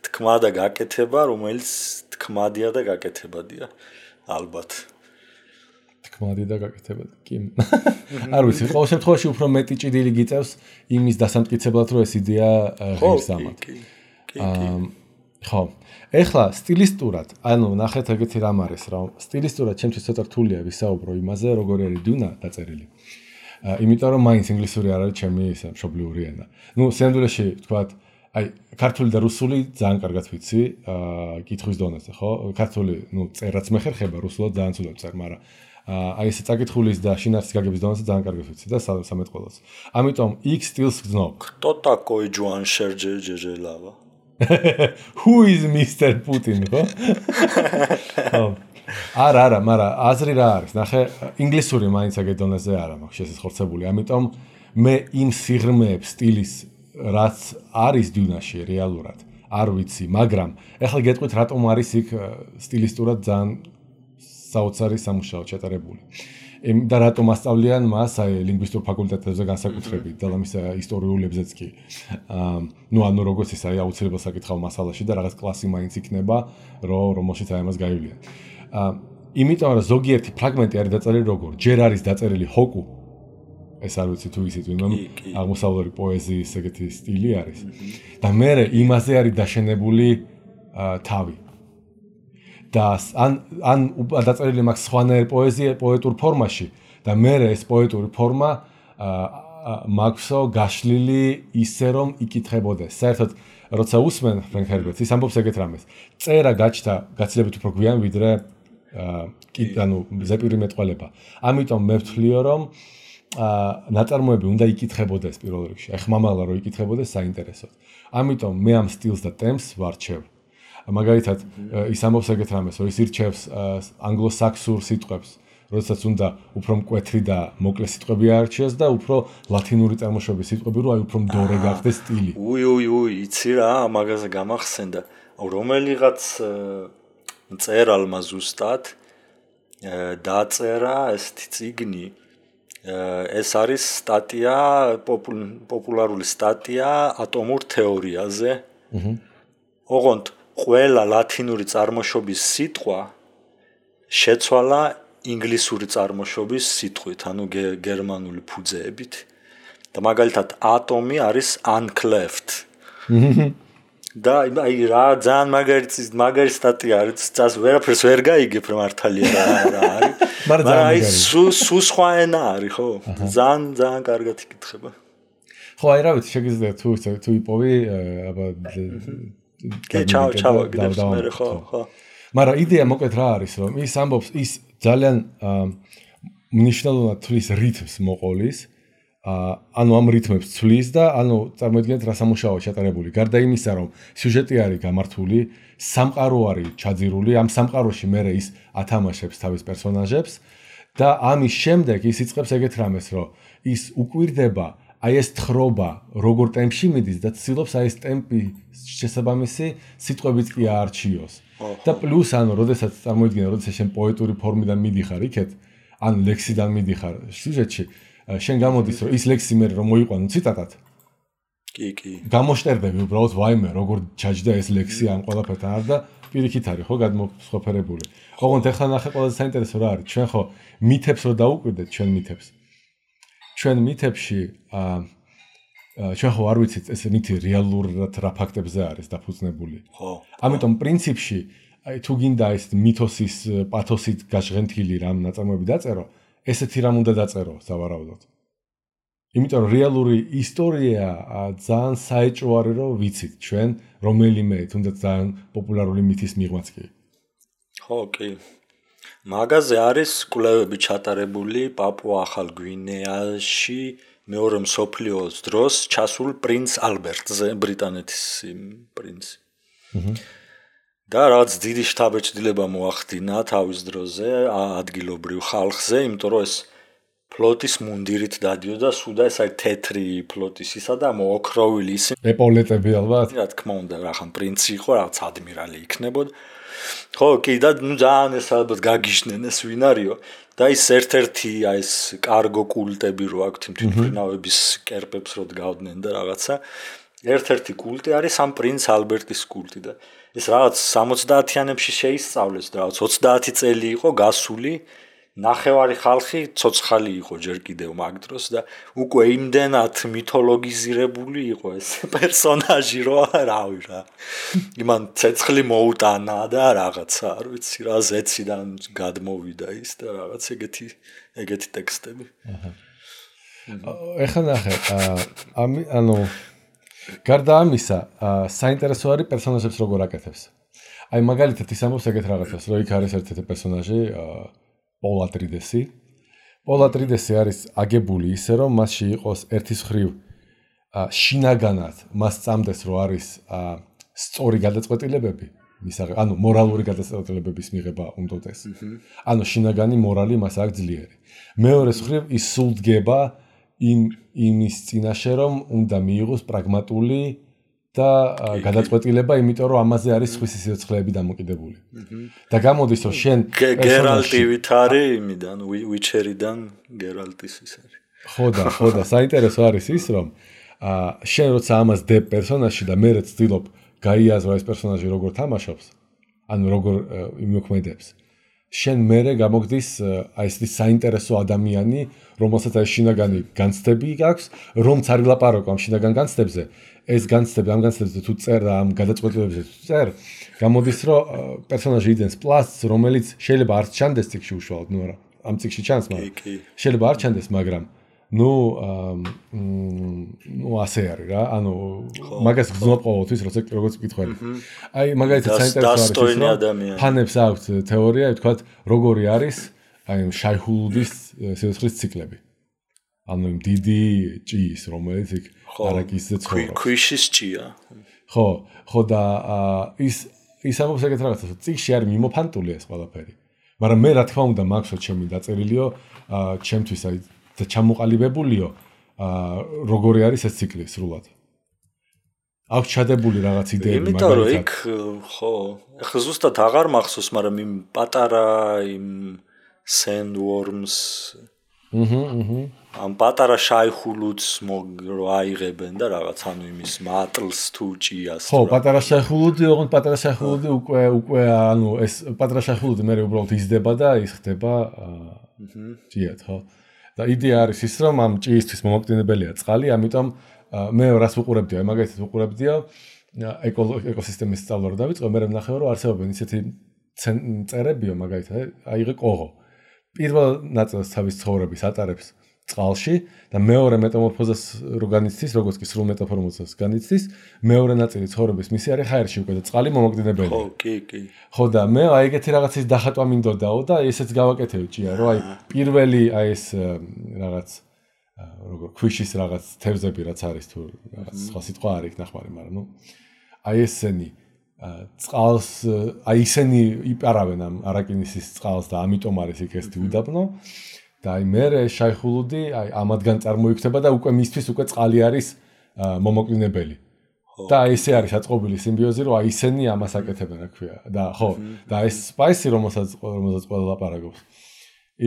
თქმა და გაკეთება რომელიც თქმადია და გაკეთებადია ალბათ თქმადი და გაკეთებადი კი არ ვიცი ყოველ შემთხვევაში უფრო მეტი ჭიდილი გიწევს იმის დასამტკიცებლად რომ ეს იდეა ღირს ამათ ხო ეხლა სტილისტურად ანუ ნახეთ ეგეთი რამ არის რომ სტილისტურად ჩემთვის ცოტა რთულია ვისაუბრო იმაზე როგორი არის დუნა დაწერილი იმიტომ რომ მაინც ინგლისური არ არის ჩემი ისე მშობლიური ენა ну სინამდვილეში თქვათ აი ქართული და რუსული ძალიან კარგად ვიცი კითხვის დონეზე ხო ქართული ну წერაც მე ხერხება რუსულად ძალიან ცუდად წერ მაგრამ აი ესე წაკითხulis და შინაარსის გაგების დონეზე ძალიან კარგად ვიცი და სამეთყველოს ამიტომ X სტილს გძნობ кто такой Джоан Шерджელავა Who is Mr. Putin, ხო? არა, მაგრამ აზრი რა არის? ნახე, ინგლისური მაინც ეგ დონეზე არა მაქვს შესაძლებელი. ამიტომ მე იმ სიღრმეებს სტილის რაც არის დუნაში რეალურად არ ვიცი, მაგრამ ეხლა გეტყვით რატომ არის იქ სტილისტურად ძალიან საოცარი სამუშაო ჩატარებული. და რატომ ასწავლიან მას აი ლინგვისტურ ფაკულტეტებზე განსაკუთრებით და ამის ისტორიულებზეც კი. ну ანუ როგორც ის აი აუცილებლად საკითხავ მასალაში და რაღაც კლასი მაინც იქნება, რომელშიც აი ამას გაივლიან. იმიტომ რომ ზოგიერთი ფრაგმენტი არის დაწერილი როგორ? ჯერ არის დაწერილი ჰოკუ. ეს არ ვიცი თუ ისიც ვინმე აღმოსავლური პოეზიის ეგეთი სტილი არის. და მე იმაზე არის დაშენებული თავი. და ან დაწერილი მაქვს სხვანაირ პოეტურ ფორმაში და მე ეს პოეტური ფორმა მაქვსო გაშლილი ისე რომ იკითხებოდეს. საერთოდ როცა უსმენ ფრენკ ჰერბერტს ის ამბობს ეგეთ რამეს. წერა გაჩნდა გაცილებით უფრო გვიან ვიდრე ანუ ზეპირი მეტყველება. ამიტომ მე ვთვლიო რომ ნაწარმოები უნდა იკითხებოდეს პირველ რიგში. აი ხმამაღლა რომ იკითხებოდეს საინტერესოდ. ამიტომ მე ამ სტილს და ტემპს ვარჩევ. მაგალითად ის ამბობს ეგეთ რამეს, რომ ის ირჩევს ანგლო-საქსურ სიტყვებს, როდესაც უნდა უფრო მკვეთრი და მოკლე სიტყვები აარჩიოს და უფრო ლათინური წარმოშობის სიტყვები, რომ აი უფრო მდორე გახდეს სტილი. იცი რა, მაგაზე გამახსენდა. რომელიღაც მწერალმა ზუსტად დაწერა ესეთი წიგნი. ეს არის სტატია, პოპულარული სტატია ატომურ თეორიაზე. ოღონდ ყველა ლათინური წარმოშობის სიტყვა შეცვალა ინგლისური წარმოშობის სიტყვით, ანუ გერმანული ფუძეებით. და მაგალითად ატომი არის uncleft. და აი რა ძალიან მაგარი სტატია არის, წას ვერაფერს ვერ გაიგებ მართალია რა არის. მაგრამ აი სუ სხვა ენა არის, ხო? ძალიან კარგად იკითხება. ხო, აი რა ვიცი, შეგიძლია თუ იპოვი, აბა ჩავაგდებს მე ხო. მაგრამ იდეა მოკლედ რა არის, რომ ის ამბობს, ის ძალიან მნიშვნელოვნად თვლის რითმს მოყოლის, ანუ ამ რითმებს თვლის და ანუ წარმოიდგინეთ რა სამუშაოა ჩატარებული. გარდა იმისა, რომ სიუჟეტი არის გამართული, სამყარო არის ჩაძირული, ამ სამყაროში მე ის ათამაშებს თავის პერსონაჟებს და ამის შემდეგ ის იწყებს ეგეთ რამეს, რომ ის უკვირდება აი ეს თხრობა როგორ ტემპში მიდის და ცდილობს აი ეს ტემპი შესაბამისი სიტყვებით კი აარჩიოს. და პლუს ანუ როდესაც წარმოიდგინე, როდესაც შენ პოეტური ფორმიდან მიდიხარ იქეთ, ან ლექსიდან მიდიხარ სიუჟეტში, შენ გამოდის რომ ის ლექსი მე რომ მოიყვანო ციტატად. კი. გამოშტერდები უბრალოდ ვაიმე როგორ ჩაჯდა ეს ლექსი ამ ყველაფერთან არ და პირიქით არის ხო გადმოსხოფერებული. ოღონდ ეხლა ნახე ყველაზე საინტერესო რა არის, ჩვენ ხო მითებს რო დაუკვირდეთ ჩვენ მითებს. ჩვენ მითებში ჩვენ ხო არ ვიცით ეს მითი რეალურად რა ფაქტებზე არის დაფუძნებული. ხო. ამიტომ პრინციპში აი თუ გინდა ეს მითოსის პათოსით გაჟღენთილი რამ ნაწარმოები დაწერო, ესეთი რამ უნდა დაწერო სავარაუდოდ. იმიტომ რომ რეალური ისტორია ძალიან საეჭვო არის რომ ვიცით ჩვენ რომელიმე თუნდაც ძალიან პოპულარული მითის მიღმაც კი. ხო, კი. მაგაზე არის კვლევები ჩატარებული პაპუა-ახალ გვინეაში მეორე მსოფლიო ომის დროს ჩასულ პრინც ალბერტზე, ბრიტანეთის პრინცი. და რაც დიდი შთაბეჭდილება მოახდინა თავის დროზე ადგილობრივ ხალხზე, იმიტომ რომ ეს ფლოტის მუნდირით დადიოდა, სულ და ეს აი თეთრი ფლოტის ისა და მოოქროვილი ისი. ეპოლეტები ალბათ. რა თქმა უნდა, რახან პრინცი იყო, რაღაც ადმირალი იქნებოდა. ხო, კი და ნუ ძალიან ეს ალბათ გაგიჟნენ ეს ვინ არისო და ის ერთ-ერთი აი ეს კარგო კულტები რო აქვთ იმ თვითმფრინავების კერპებს რო დგავდნენ და რაღაცა ერთ-ერთი კულტი არის ამ პრინც ალბერტის კულტი და ეს რაღაც 70-იანებში შეისწავლეს და რაღაც 30 წელი იყო გასული ნახევარი ხალხი ცოცხალი იყო ჯერ კიდევ მაგ დროს და უკვე იმდენად მითოლოგიზირებული იყო ეს პერსონაჟი რომ რავი რა იმან ცეცხლი მოუტანა და რაღაცა არ ვიცი რა ზეციდან გადმოვიდა ის და რაღაც ეგეთი ტექსტები. ეხლა ნახე ანუ გარდა ამისა საინტერესო არის პერსონაჟებს როგორ აკეთებს. აი მაგალითად ის ამბობს ეგეთ რაღაცას რომ იქ არის ერთ-ერთი პერსონაჟი პოლ ატრიდესი. პოლ ატრიდესი არის აგებული ისე რომ მასში იყოს ერთის მხრივ შინაგანად მას წამდეს რომ არის სწორი გადაწყვეტილებები, ანუ მორალური გადაწყვეტილებების მიღება უნდოდეს. ანუ შინაგანი მორალი მას აქვს ძლიერი. მეორეს მხრივ ის სულ დგება იმის წინაშე რომ უნდა მიიღოს პრაგმატული და გადაწყვეტილება, იმიტომ რომ ამაზე არის სხვისი სიცოცხლეები დამოკიდებული. და გამოდის რომ შენ გერალტი ვით არის იმიდან ვიჩერიდან გერალტის ის არის. ხო და საინტერესო არის ის რომ შენ როცა ამას დებ პერსონაჟში და მე ვცდილობ გაიაზრო ეს პერსონაჟი როგორ თამაშობს, ანუ როგორ იმოქმედებს. შენ მერე გამოგდის აი ეს საინტერესო ადამიანი, რომელსაც აი შინაგანი განცდები აქვს, რომც არ ილაპარაკო ამ შინაგან განცდებზე. ეს განცდები ამ განცდებზე თუ წერ და ამ გადაწყვეტილებებზე თუ წერ, გამოდის რომ პერსონაჟი იძენს პლასს, რომელიც შეიძლება არ ჩანდეს ციკში უშუალოდ, ნუ არა, ამ ციკში ჩანს, მაგრამ შეიძლება არ ჩანდეს, მაგრამ ნუ ასე არის რა, ანუ მაგას გძნობ ყოველთვის, როგორც ვკითხველი. აი მაგალითად საინტერესო არის რომ ფანებს აქვს თეორია, ვთქვათ, როგორი არის აი შაიჰულუდის სიცოცხლის ციკლები. ანუ იმ დიდი ჭიის, რომელიც იქ არაკისზე ცხოვრობს. ქვიშის ჭია. ხო და ის ამბობს ეგეთ რაღაცას, რომ ციკში არის მიმოფანტული ეს ყველაფერი. მაგრამ მე რა თქმა უნდა მაქვს ჩემი დაწერილიო, ჩემთვის აი და ჩამოყალიბებულიო, როგორი არის ეს ციკლი სრულად. აქვს ჩადებული რაღაც იდეები მაგალითად. იმიტომ რომ იქ ხო, ახლა ზუსტად აღარ მახსოვს, მაგრამ იმ პატარა იმ sandworms ამ პატარა შაიჰულუდს რო აიღებენ და რაღაც ანუ იმის მატლს თუ ჭიას. ხო, პატარა შაიჰულუდი, ოღონდ პატარა შაიჰულუდი უკვე ანუ ეს პატარა შაიჰულუდი მე უბრალოდ იზრდება და ის ხდება ჭიად, ხო? და იდეა არის ის რომ ამ ჭიისთვის მომაკვდინებელია წყალი, ამიტომ მე რას ვუყურებდიო, მაგალითად ვუყურებდიო ეკოსისტემის სწავლა რო დავიწყო, მე ვნახე რომ არსებობენ ისეთი წერებიო მაგალითად, აიღე კოღო. პირველ ნაწილს თავის ცხოვრების ატარებს წყალში და მეორე მეტამორფოზას რო განიცდის, როგორც კი სრულ მეტამორფოზას განიცდის, მეორე ნაწილი ცხოვრების მისი არის ჰაერში უკვე და წყალი მომაკვდინებელი. ხო, კი. ხო და მე აი ეგეთი რაღაცის დახატვა მინდოდაო და ესეც გავაკეთებ ჭია, რომ აი პირველი აი ეს რაღაც როგორ ქვიშის რაღაც თევზები რაც არის თუ რაღაც სხვა სიტყვა არ იქ ნახმარი, მაგრამ ნუ აი ესენი წყალს აი ისინი იპარავენ ამ არაკინისის წყალს და ამიტომ არის იქ ესეთი უდაბნო და აი მე შაიხულუდი აი ამადგან წარმოიქნება და უკვე მისთვის უკვე წყალი არის მომაკვდინებელი და აი ესე არის აწყობილი სიმბიოზი რომ აი ისინი ამას აკეთებენ რა ქვია და ხო და ეს სპაისი რომელსაც ყველა ლაპარაკობს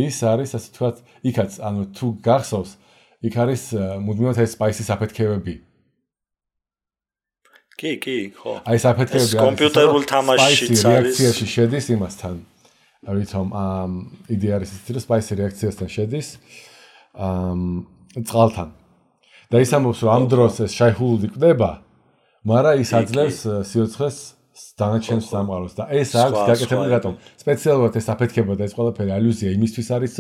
ის არის ასე თქვა იქაც ანუ თუ გახსოვს იქ არის მუდმივად ეს სპაისის აფეთქებები კი, ხო. აი საფეთქებები არის კომპიუტერულ თამაშშიც არის. რეაქციაში შედის იმასთან. რითომ იდეა არის ის, რომ სპაისი რეაქციასთან შედის წყალთან. და ის ამბობს, რომ ამ დროს ეს შაიხულუდი კვდება, მაგრამ ის აძლევს სიოცხლეს დანარჩენ სამყაროს და ეს აქვს გაკეთებული რატომ? სპეციალურად ეს აფეთქება და ეს ყველაფერი ალუზია იმისთვის არის,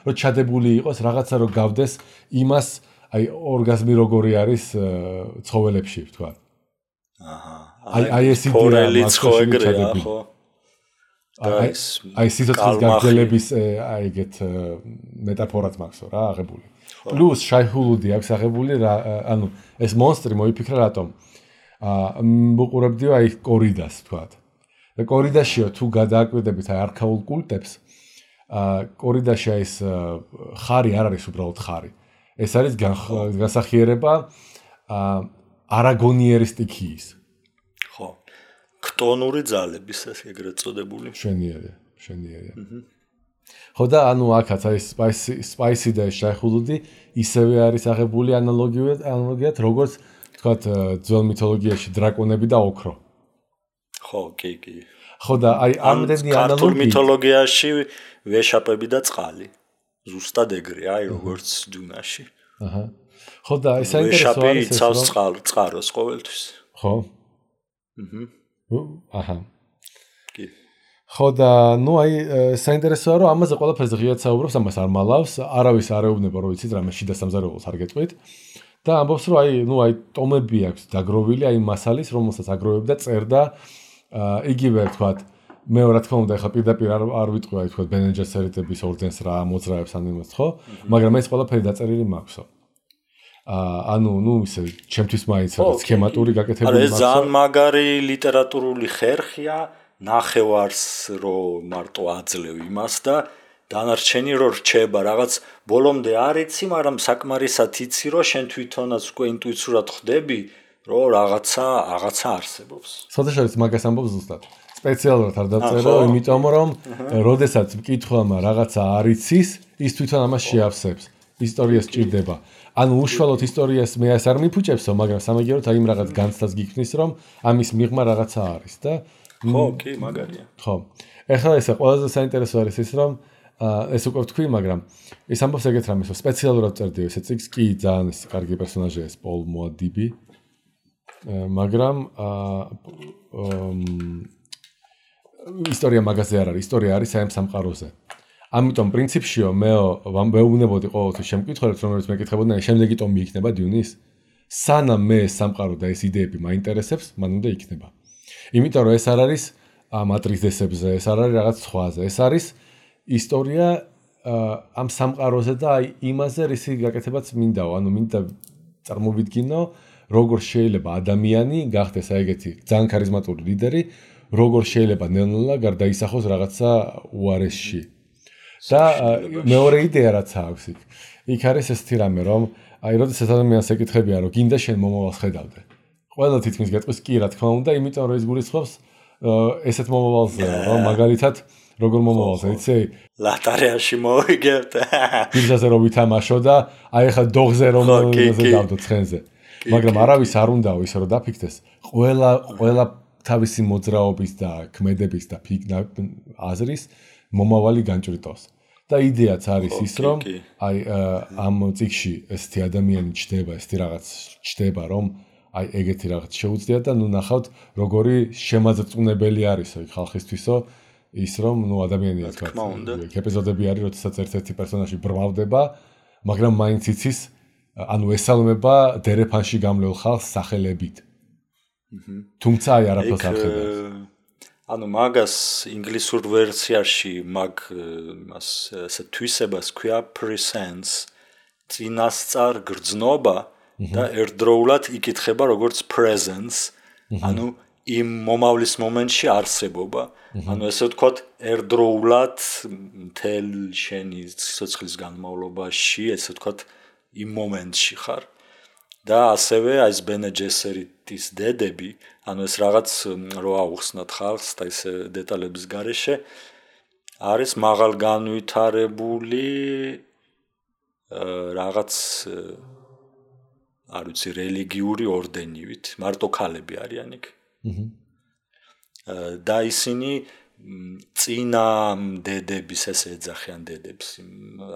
რომ ჩადებული იყოს რაღაცა რომ გავდეს იმას, აი ორგაზმი როგორი არის ცხოველებში, თქვა. აი ეს იდეა ხო ეგრეა ხო აი სიცოცხლის გაგრძელების აი ეგეთ მეტაფორაც მაქვს რა აღებული პლუს შაიხულუდი აქვს აღებული რა ანუ ეს მონსტრი მოიფიქრა რატომ მუყურებდიო აი კორიდას თქვათ და კორიდაშიო თუ გადააკვირდებით აი არქაულ კულტებს კორიდაში აი ეს ხარი არ არის უბრალოდ ხარი ეს არის გასახიერება არაგონიერის სტიქიის. ხო. ქტონური ძალების ეგრეთ წოდებული. შენიერია. ხო და ანუ აქაც აი სპაისი და შაიხულუდი ისევე არის აღებული ანალოგიად როგორც თქვათ ძველ მითოლოგიაში დრაკონები და ოქრო. ხო, კი. ხო და აი ამდენი ანალოგია ქართულ მითოლოგიაში ვეშაპები და წყალი. ზუსტად ეგრეა, აი როგორც დუნაში. აჰა. ხო და ეს საინტერესო არის ეს რომ წყაროს ყოველთვის. ხო? აჰა. კი. ხო და ნუ აი საინტერესოა რომ ამაზე ყველაფერზე ღიად საუბრობს, ამას არ მალავს, არავის არ ეუბნება რომ იცით რამე შიდა სამზარეულოს არ გეტყვით და ამბობს რომ აი ნუ აი ტომები აქვს დაგროვილი აი მასალის რომელსაც აგროვებდა წერდა იგივე თქვათ მე რა თქმა უნდა ეხლა პირდაპირ არ ვიტყვი აი თქვათ ბენეჯესერიტების ორდენს რა მოძრაებს ან იმას ხო მაგრამ ეს ყველაფერი დაწერილი მაქვსო ანუ ნუ ისე ჩემთვის მაინც სქემატური გაკეთებული მაქვს. ეს ძალიან მაგარი ლიტერატურული ხერხია, ნახევარს რო მარტო აძლევ იმას და დანარჩენი რო რჩება, რაღაც ბოლომდე არ იცი, მაგრამ საკმარისად იცი, რომ შენ თვითონაც უკვე ინტუიციურად ხვდები, რომ რაღაცა არსებობს. სოდეშორის მაგას ამბობს ზუსტად. სპეციალურად არ დაწერო, იმიტომ რომ როდესაც მკითხველმა რაღაცა არ იცის, ის თვითონ ამას შეავსებს. ისტორიას ჭირდება. ანუ უშუალოდ ისტორიას მე არ მიფუჭებსო, მაგრამ სამაგიეროდ აი იმ რაღაც განცდას გიქმნის, რომ ამის მიღმა რაღაცა არის და ხო, კი, მაგარია. ხო. ეხლა ესე ყველაზე საინტერესო არის ის, რომ ეს უკვე ვთქვი, მაგრამ ეს ამბობს ეგეთ რამეს, რომ სპეციალურად წერდიო ესე წიგს, კი ძალიან ეს კარგი პერსონაჟია ეს პოლ მოადიბი. მაგრამ ისტორია მაგაზე არ არის, ისტორია არის აი ამ სამყაროზე. ამიტომ პრინციპშიო მე ვეუბნებოდი ყოველთვის შემკითხველებს რომელიც მეკითხებოდნენ შემდეგი ტომი იქნება დიუნის სანამ მე სამყარო და ეს იდეები მაინტერესებს მან უნდა იქნება იმიტომ რომ ეს არ არის მატრიცესებზე ეს არ არის რაღაც სხვაზე ეს არის ისტორია ამ სამყაროზე და აი იმაზე რისი გაკეთებაც მინდაო ანუ მინდა წარმოვიდგინო როგორ შეიძლება ადამიანი გახდეს აი ეგეთი ძალიან ქარიზმატული ლიდერი როგორ შეიძლება ნელ-ნელა გარდაისახოს რაღაცა უარესში და მეორე იდეა რაც აქვს იქ არის ეს თირამე რომ აი როდესაც ადამიანს ეკითხებიან რომ გინდა შენ მომავალს ხედავდე ყველა თითქმის გეტყვის კი რა თქმა უნდა იმიტომ რომ ის გულისხმობს ესეთ მომავალზე რომ მაგალითად როგორ მომავალს იცი ლატარიაში მოვიგებთ ბიძაზე რომ ვითამაშო და აი ახლა დოღზე რომ დავდო ცხენზე მაგრამ არავის არ უნდაო ისე რომ დაფიქდეს ყველა თავისი მოძრაობის და ქმედების და აზრის მომავალი განჭრიტოს და იდეაც არის ის რომ აი ამ წიგში ესეთი ადამიანი ჩდება ესეთი რაღაც ჩდება რომ აი ეგეთი რაღაც შეუძლია და ნუ ნახავთ როგორი შემაძწუნებელი არისო ხალხისთვისო ის რომ ნუ ადამიანია თქვა ეპიზოდები არის როდესაც ერთ-ერთი პერსონაჟი ბრმავდება მაგრამ მაინც იცის ანუ ესალმება დერეფანში გამლეულ ხალხს სახელებით. თუმცა აი არაფერს არ ხედავს. ანუ მაგას ინგლისურ ვერსიაში მაგ იმას ესე თვისებას ქვია presence წინასწარ გრძნობა და ერთდროულად იკითხება როგორც presence ანუ იმ მომავლის მომენტში არსებობა ანუ ესე ვთქვათ ერთდროულად მთელ შენი სიცოცხლის განმავლობაში ესე ვთქვათ იმ მომენტში ხარ და ასევე აი ეს ბენ ჯესერიტის დედები ანუ ეს რაღაც რო აუხსნათ ხალხს და ეს დეტალების გარეშე არის მაღალ განვითარებული რაღაც არ ვიცი რელიგიური ორდენივით მარტო ქალები არიან იქ და ისინი წინა დედების ესე ეძახიან დედებს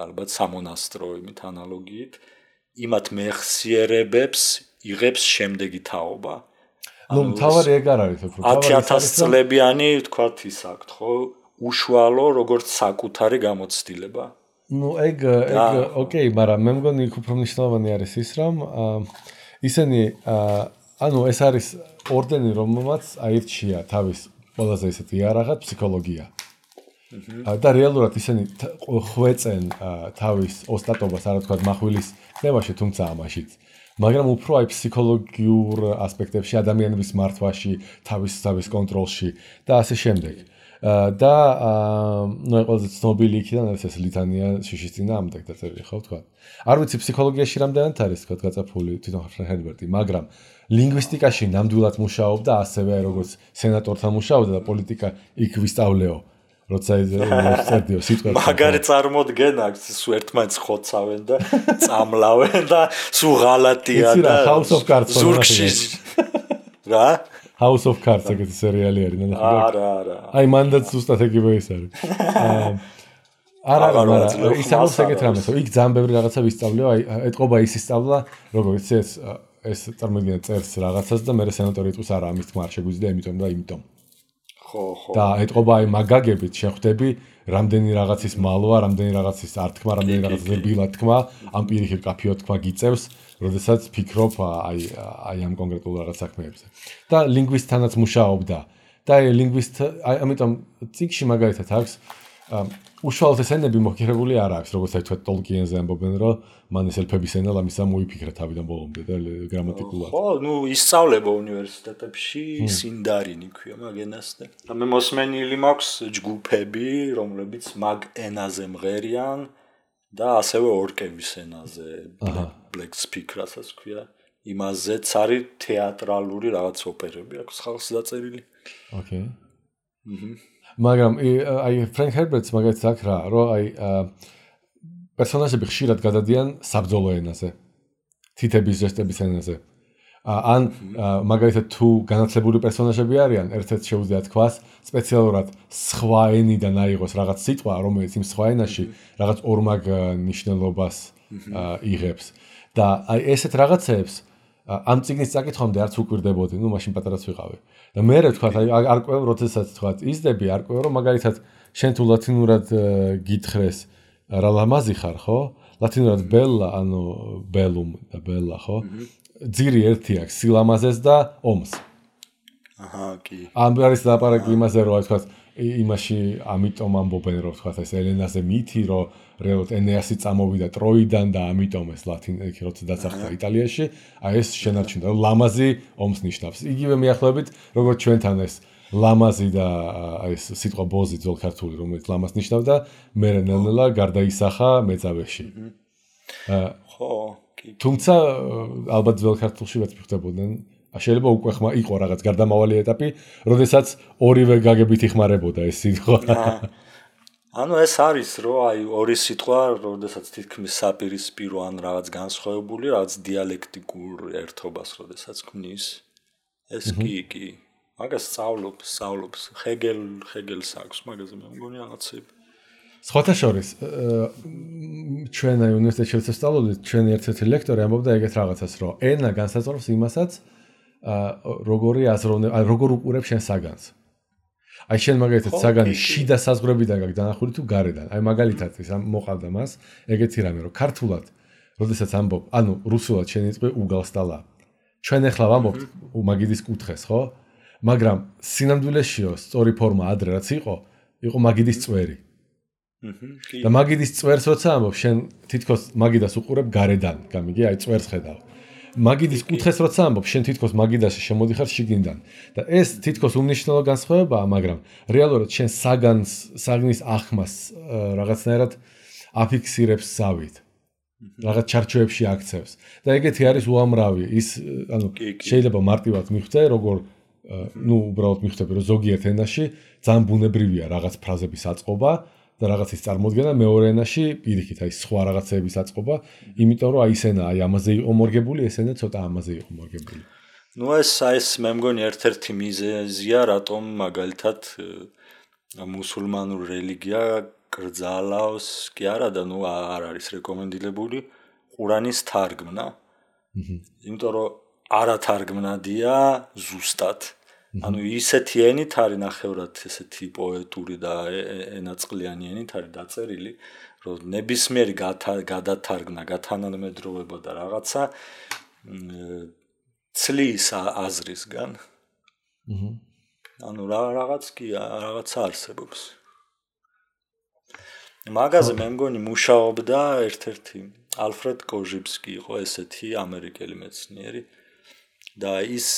ალბათ სამონასტრო იმით ანალოგიით იმათ მეხსიერებებს იღებს შემდეგი თაობა ნუ მთავარი ეგ არ არის უფრო 10000 წლებიანი ვთქვათ ის აქვთ ხო უშუალო როგორც საკუთარი გამოცდილება ნუ ეგ ოკეი მაგრამ მე მგონი იქ უფრო მნიშვნელოვანი არის ის რომ ისინი ანუ ეს არის ორდენი რომელმაც აირჩია თავის ყველაზე ისეთი იარაღად ფსიქოლოგია და რეალურად ისინი ხვეწენ თავის ოსტატობას არა თქვა מחვილის ნებაში თუმცა ამაშიც მაგრამ უფრო აი ფსიქოლოგიურ ასპექტებში ადამიანების მართვაში თავის კონტროლში და ასე შემდეგ და ნუ ყველაზე ცნობილი იქიდან არის ეს ლითანია შიშის წინააღმდეგ დაწერილი ხო თქვა არ ვიცი ფსიქოლოგიაში რამდენად არის თქვა გაწაფული თვითონ ჰერბერტი მაგრამ ლინგვისტიკაში ნამდვილად მუშაობდა ასევე როგორც სენატორთან მუშაობდა და პოლიტიკა იქ ვისწავლეო როცა წერდიო სიტყვებს მაგარი წარმოდგენა აქვს სულ ერთმანეთს ხოცავენ და წამლავენ და სულ ღალატია და House of Cards ზურგში რა House of Cards ეგეთი სერიალი არის არა აი მანდაც ზუსტად ეგივე ის არის არა ისაუბრებს ეგეთ რამეს იქ ძალიან ბევრი რაღაცა ვისწავლიო აი ეთყობა ის ისწავლა როგორც ეს წარმოიდგინე წერს რაღაცას და მე სენატორი იტყვის არა ამის თქმა არ შეგვიძლია იმიტომ ხო და ეთყობა აი მაგაგებით შეხვდები რამდენი რაღაცის მალვა რამდენი რაღაცის ართქმა რამდენი რაღაცის ბილად თქმა ამ პირიქით კაფეო თქმა გიწევს როდესაც ფიქრობ აი ამ კონკრეტულ რაღაც საქმეებზე და ლინგვისტთანაც მუშაობდა და აი ლინგვისტ ამიტომ წიგში მაგალითად აქვს უშუალოდ ეს ენები მოხერებული არ აქვს როგორც აი თქვა ტოლკიენზე ამბობენ რომ მან ეს ელფების ენა ლამისა მოიფიქრა თავიდან ბოლომდე და გრამატიკულად ხო ნუ ისწავლება უნივერსიტეტებში სინდარინი ქვია მაგ ენას და მე მოსმენილი მაქვს ჯგუფები რომლებიც მაგ ენაზე მღერიან და ასევე ორკების ენაზე black speak რასაც ქვია იმაზეც არის თეატრალური რაღაც ოპერები აქვს ხალხს დაწერილი ოკეი მაგრამ აი ფრენკ ჰერბერტს მაგალითად აქვს რა რომ აი პერსონაჟები ხშირად გადადიან საბრძოლო ენაზე თითების ჟესტების ენაზე ან მაგალითად თუ განათლებული პერსონაჟები არიან ერთ-ერთ შეუძლია თქვას სპეციალურად სხვა ენიდან აიღოს რაღაც სიტყვა რომელიც იმ სხვა ენაში რაღაც ორმაგ ნიშნულობას იღებს და აი ესეთ რაღაცებს ამ წიგნის წაკითხვამდე არც უკვირდებოდი, ნუ მაშინ პატარაც ვიყავი. და მე ვთქვა, აი არ ყვევ, როდესაც თქვა, იზდები, არ ყვევ, რომ მაგალითად შენ თუ ლათინურად გითხრეს რა ლამაზი ხარ, ხო? ლათინურად ბელა, ანუ ბელუმ და ბელა, ხო? ძირი ერთი აქვს, სილამაზეს და ომს. აჰა, კი. ამ არის ლაპარაკი იმაზე, რომ თქვა, იმაში ამიტომ ამბობენ, რომ თქვა, ეს ელენაზე მითი, რომ რეალურად ენეასი წამოვიდა ტროიდან და ამიტომ ეს ლათინი როცა დაწახდა იტალიაში, აი ეს შენარჩუნდა, რომ ლამაზი ომს ნიშნავს. იგივე მიახლოებით, როგორც ჩვენთან ეს ლამაზი და ეს სიტყვა ბოზი ძველ ქართული, რომელიც ლამას ნიშნავდა, მე ნელ-ნელა გარდაისახა მეწავეში. ხო, კი. თუმცა ალბათ ძველ ქართულში ვეც მიხვდებოდნენ, შეიძლება უკვე იყო რაღაც გარდამავალი ეტაპი, როდესაც ორივე გაგებით იხმარებოდა ეს სიტყვა. ანუ ეს არის რომ აი ორი სიტყვა, როდესაც თითქმის საპირისპირო ან რაღაც განსხვავებული, რაღაც დიალექტიკურ ერთობას როდესაც ქმნის. ეს კი. მაგას სწავლობს ჰეგელს აქვს მაგაზე მე მგონი რაღაცები. სხვათა შორის ჩვენ აი უნივერსიტეტში ვსწავლობდით, ჩვენი ერთ-ერთი ლექტორი ამბობდა ეგეთ რაღაცას, რომ ენა განსაზღვრავს იმასაც, როგორი აზროვნე, როგორ უყურებ შენ საგანს. აი შენ მაგალითად საგანი შიდა საზღვრებიდან გაქვს დანახული თუ გარედან. აი მაგალითად ის მოყავდა მას ეგეთი რამე რომ ქართულად როდესაც ამბობ, ანუ რუსულად შენ იწვე უგალსტალა. ჩვენ ახლა ვამბობთ მაგიდის კუთხეს, ხო? მაგრამ სინამდვილეშიო სწორი ფორმა ადრე რაც იყო მაგიდის წვერი. და მაგიდის წვერს როცა ამბობ, შენ თითქოს მაგიდას უყურებ გარედან, გამიგი, აი წვერს ხედავ. მაგიდის კუთხეს როცა ამბობ, შენ თითქოს მაგიდაში შემოდიხარ შიგნიდან. და ეს თითქოს უმნიშვნელო განსხვავებაა, მაგრამ რეალურად შენ საგნის ახმას რაღაცნაირად აფიქსირებს ზავით. რაღაც ჩარჩოებში აქცევს. და ეგეთი არის უამრავი. ის ანუ შეიძლება მარტივად მიხვდე, როგორ უბრალოდ მიხვდები, რომ ზოგიერთ ენაში ძალიან ბუნებრივია რაღაც ფრაზების აწყობა და რაღაცის წარმოდგენა, მეორე ენაში პირიქით, აი სხვა რაღაცების აწყობა, იმიტომ რომ აი ეს ენა აი ამაზე იყო მორგებული, ეს ენა ცოტა ამაზე იყო მორგებული. ნუ ეს მე მგონი ერთ-ერთი მიზეზია, რატომ მაგალითად მუსულმანური რელიგია კრძალავს კი არა და ნუ არ არის რეკომენდირებული ყურანის თარგმნა. იმიტომ რომ არათარგმნადია ზუსტად. ანუ ისეთი ენით არის ნახევრად ესეთი პოეტური და ენაწყლიანი ენით არის დაწერილი, რომ ნებისმიერი გადათარგმნა, გათანამედროვება და რაღაცა ცლის აზრისგან. ანუ რაღაც კი რაღაცა არსებობს. მაგაზე მე მგონი მუშაობდა ერთ-ერთი ალფრედ კოჟიბსკი იყო ესეთი ამერიკელი მეცნიერი და ის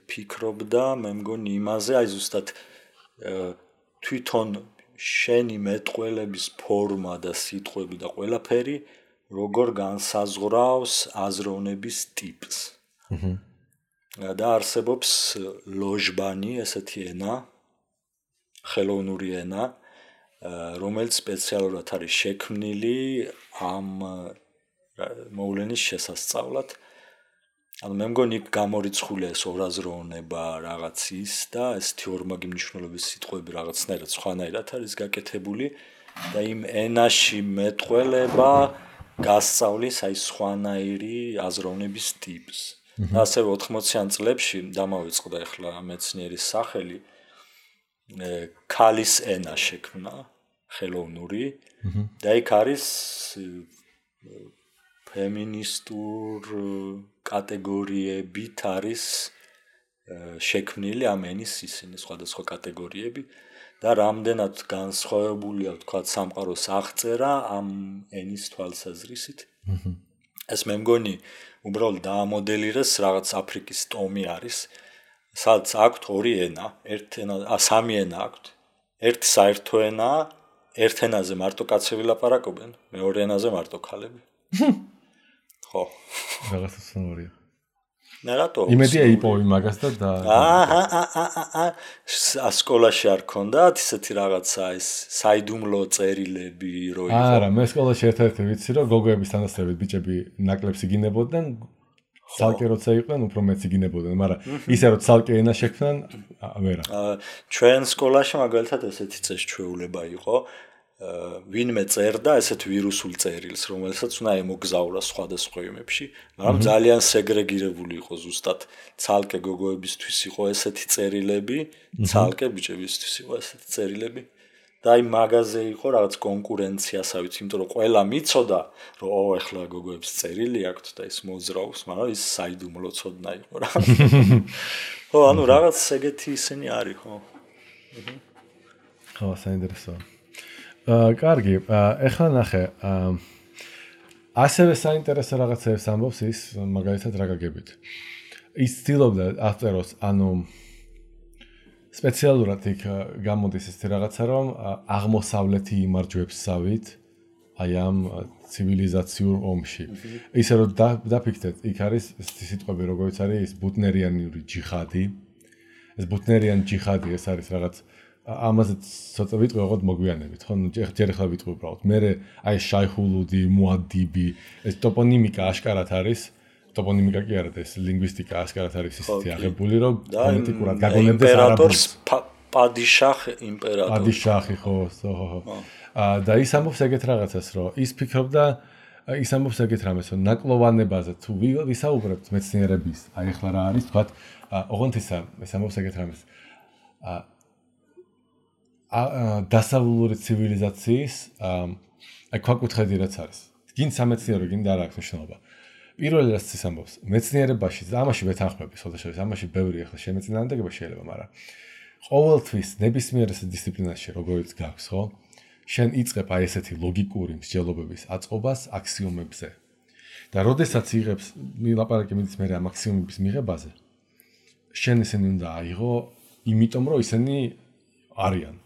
ფიქრობდა მე მგონი იმაზე აი ზუსტად თვითონ შენი მეტყველების ფორმა და სიტყვები და ყველაფერი როგორ განსაზღვრავს აზროვნების ტიპს. და არსებობს ლოჟბანი ესეთი ენა ხელოვნური ენა რომელიც სპეციალურად არის შექმნილი ამ მოვლენის შესასწავლად. ანუ მე მგონი გამორიცხულია ეს ორაზროვნება რაღაც ის და ესეთი ორმაგი მნიშვნელობის სიტყვები რაღაცნაირად სხვანაირად არის გაკეთებული და იმ ენაში მეტყველება გასწავლის აი სხვანაირი აზროვნების ტიპს. და ასევე 80-იან წლებში დამავიწყდა ახლა მეცნიერის სახელი ქალის ენა შექმნა ხელოვნური და იქ არის ფემინისტურ კატეგორიებით არის შექმნილი ამ ენის ისინი სხვადასხვა კატეგორიები და რამდენად განსხვავებულია თქვა სამყაროს აღწერა ამ ენის თვალსაზრისით. ეს მე მგონი უბრალოდ დაამოდელირეს რაღაც აფრიკის ტომი არის სადაც აქვთ ორი ენა, სამი ენა აქვთ. ერთი საერთო ენაა, ერთ ენაზე მარტო კაცები ლაპარაკობენ, მეორე ენაზე მარტო ქალები. ხო. რაღაცა სუნორია. რატო? იმედია იპოვი მაგას და სკოლაში არ ქონდათ ისეთი რაღაცა ეს საიდუმლო წერილები რო იყო. არა, მე სკოლაში ერთ-ერთი ვიცი რომ გოგოების თანასწორებით ბიჭები ნაკლებს იგინებოდნენ. ცალკე როცა იყვნენ, უფრო მეც იგინებოდნენ, მაგრამ ისე რომ ცალკე ენა შექმნან, ვერა. ჩვენ სკოლაში მაგალითად ესეთი წესჩვეულება იყო, ვინმე წერდა ესეთ ვირუსულ წერილს, რომელსაც უნდა ემოგზაურა სხვადასხვა იმებში, მაგრამ ძალიან სეგრეგირებული იყო ზუსტად. ცალკე გოგოებისთვის იყო ესეთი წერილები, ცალკე ბიჭებისთვის იყო ესეთი წერილები. და აი მაგაზე იყო რაღაც კონკურენციასავით, იმიტომ რომ ყველა მიცოდა, რომ ეხლა გოგოებს წერილი აქვთ და ის მოძრაობს, მაგრამ ის საიდუმლო ცოდნა იყო რა. ხო, ანუ რაღაც ეგეთი ისინი არის, ხო. ხო, საინტერესოა. კარგი, ეხლა ნახე, ასევე საინტერესო რაღაცებს ამბობს ის მაგალითად რა გაგებით. ის ცდილობდა ავტორს, ანუ სპეციალურად იქ გამოდის ესეთი რაღაცა, რომ აღმოსავლეთი იმარჯვებს ზავით აი ამ ცივილიზაციურ ომში. ისე რომ დაფიქრდეთ, იქ არის სიტყვები, როგორც არის ის ბუტნერიანული ჯიხადი. ეს ბუტნერიანი ჯიხადი ეს არის რაღაც ამაზე ცოტა ვიტყვი, ოღონდ მოგვიანებით, ხო? ჯერ ახლა ვიტყვი უბრალოდ. მე აი შაიჰულუდი, მუადიბი, ეს ტოპონიმიკა აშკარად არის. ტოპონიმიკა კი არა, ეს ლინგვისტიკა აშკარად არის ისეთი აღებული, რომ ფონეტიკურად გაგონებდეს არაბულს. პადიშახი ხო. და ის ამბობს ეგეთ რაღაცას, რომ ის ფიქრობდა, ის ამბობს ეგეთ რამეს, რომ ნაკლოვანებაზე თუ ვისაუბრებთ მეცნიერების, აი ახლა რა არის, თქვათ, ოღონდ ის ამბობს ეგეთ რამეს. დასავლური ცივილიზაციის აი ქვაკუთხედი რაც არის. გინ სამეცნიერო, გინ და რა აქვს მნიშვნელობა. პირველი რაც ის ამბობს, მეცნიერებაში, ამაში ვეთანხმები, შესაძლოა ამაში ბევრი ახლა შემეწინააღმდეგება შეიძლება, მაგრამ ყოველთვის ნებისმიერ დისციპლინაში როგორიც გაქვს, ხო? შენ იწყებ აი ესეთი ლოგიკური მსჯელობების აწყობას აქსიომებზე. და როდესაც იღებს მილაპარაკი მიდის მე ამ აქსიომების მიღებაზე, შენ ისინი უნდა აიღო, იმიტომ რომ ისინი არიან.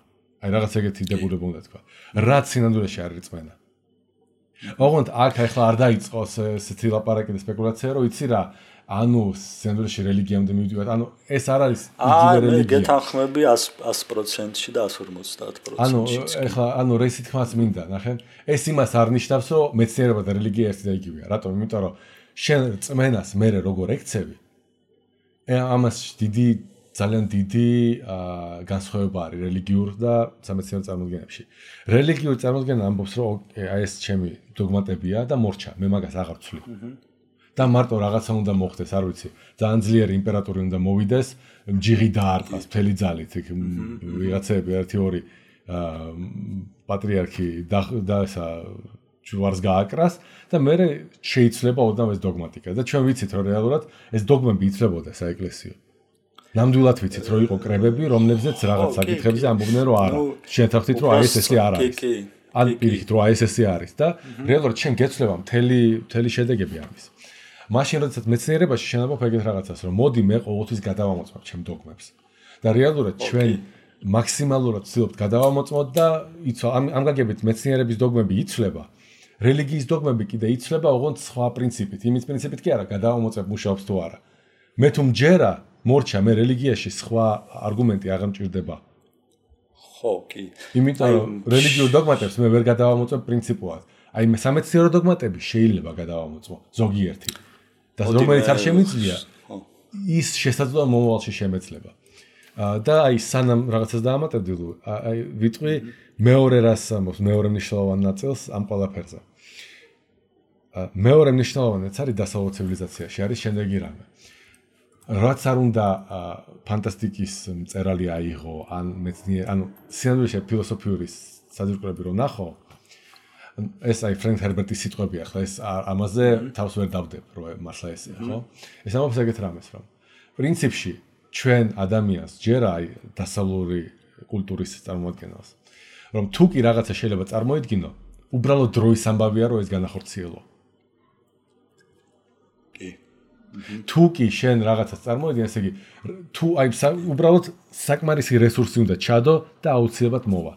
აი რაღაც ეგეთი დებულება უნდა თქვა. რაც სინამდვილეში არის რწმენა. ოღონდ აქ ახლა არ დაიწყოს ესეთი ლაპარაკი და სპეკულაცია, რომ იცი რა, ანუ სინამდვილეში რელიგიამდე მივდივართ. ანუ ეს არ არის იგივე რელიგია. გეთანხმები 100%-ში და 150%-ში. ანუ ახლა რესი თქმაც მინდა, ნახე. ეს იმას არ ნიშნავს, რომ მეცნიერება და რელიგია ერთი და იგივეა. რატომ? იმიტომ რომ შენ რწმენას მერე როგორ ექცევი, ამას ძალიან დიდი განსხვავება არის რელიგიურ და სამეცნიერო წარმოდგენებში. რელიგიური წარმოდგენა ამბობს, რომ აი ეს ჩემი დოგმატებია და მორჩა, მე მაგას აღარ ვცვლი. და მარტო რაღაცა უნდა მოხდეს, არ ვიცი, ძალიან ძლიერი იმპერატორი უნდა მოვიდეს, ჯიღი დაარტყას მთელი ძალით, იქ ვიღაცები 1-2 პატრიარქი და ესა ჯვარს გააკრას და მე შეიცვლება ოდნავ ეს დოგმატიკა და ჩვენ ვიცით, რომ რეალურად ეს დოგმები იცვლებოდა საეკლესიო. ნამდვილად ვიცით, რომ იყო კრებები, რომლებზეც რაღაც საკითხებზე ამბობდნენ, რომ არა. შენ თახთით, რომ აი ეს არ არის. ან პირიქით, რომ აი ეს არის და რეალურად შენ გეცვლება მთელი შედეგები ამის. მაშინ როდესაც მეცნიერებაში შენ ამბობ ეგეთ რაღაცას, რომ მოდი მე ყოველთვის გადავამოწმებ ჩემ დოგმებს. და რეალურად ჩვენ მაქსიმალურად ვცდილობთ გადავამოწმოთ და ამ გაგებით მეცნიერების დოგმები იცვლება. რელიგიის დოგმები კიდე იცვლება ოღონდ სხვა პრინციპით. იმის პრინციპით კი არა, გადავამოწმებ მუშაობს თუ არა. მე თუ მჯერა მორჩა მე რელიგიაში სხვა არგუმენტი აღარ მჭირდება. ხო, კი. იმიტომ რომ რელიგიურ დოგმატებს მე ვერ გადავამოწმებ პრინციპულად. აი მე სამეცნიერო დოგმატები შეიძლება გადავამოწმო ზოგიერთი. და რომელიც არ შემიძლია, ის შესაძლოა მომავალში შემეძლება. და აი სანამ რაღაცას დაამატებდი, აი ვიტყვი მეორე რას ამბობს, მეორე მნიშვნელოვან ნაწილს ამ ყველაფერზე. მეორე მნიშვნელოვანიც არის დასავლურ ცივილიზაციაში არის შემდეგი რამე. რაც არ უნდა ფანტასტიკის მწერალი აიღო, ანუ სინამდვილეში ფილოსოფიური საძირკვლები რომ ნახო, ეს აი ფრენკ ჰერბერტის სიტყვები ახლა ეს ამაზე თავს ვერ დავდებ, რომ მართლა ესეა, ხო? ეს ამბობს ეგეთ რამეს, რომ პრინციპში ჩვენ ადამიანს ჯერა აი დასავლური კულტურის წარმოადგენას, რომ თუ კი რაღაცა შეიძლება წარმოიდგინო, უბრალოდ დროის ამბავია, რომ ეს განახორციელო. თუ კი შენ რაღაცას წარმოიდგენ, ესე იგი, თუ აი უბრალოდ საკმარისი რესურსი უნდა ჩადო და აუცილებლად მოვა.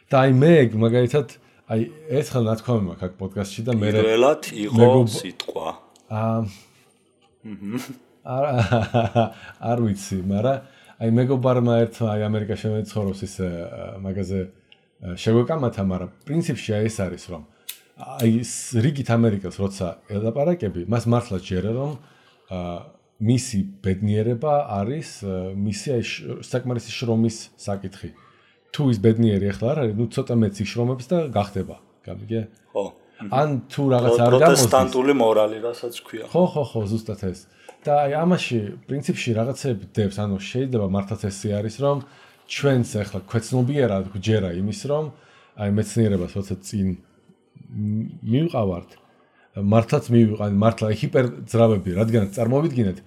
და აი მე მაგალითად აი ეს ხელ ნათქვამი მაქვს აქ პოდკასტში და მე პირველად იყო სიტყვა. არ ვიცი, მაგრამ აი მეგობარმა ერთმა აი ამერიკაში მეცხოვრობს ის მაგაზე შეგვეკამათა, მაგრამ პრინციპში აი ეს არის, რომ აი რიგით ამერიკას როცა ელაპარაკები, მას მართლა ჯერა რომ მისი ბედნიერება არის მისი აი საკმარისი შრომის საკითხი. თუ ის ბედნიერი ახლა არ არის, ნუ ცოტა მეცი შრომებს და გახდება, გამიგე? ხო. ან თუ რაღაც არ გამოსდის. პროტესტანტული მორალი, რასაც ქვია. ხო, ზუსტად ეს. და აი ამაში პრინციპში რაღაცები დებს, ანუ შეიძლება მართლაც ესე არის, რომ ჩვენს ახლა ქვეცნობიერად გვჯერა იმის, რომ აი მეცნიერებას როცა წინ მივყავართ, მართლაც მივიყავართ, მართლა ჰიპერძრავები, რადგან წარმოვიდგინეთ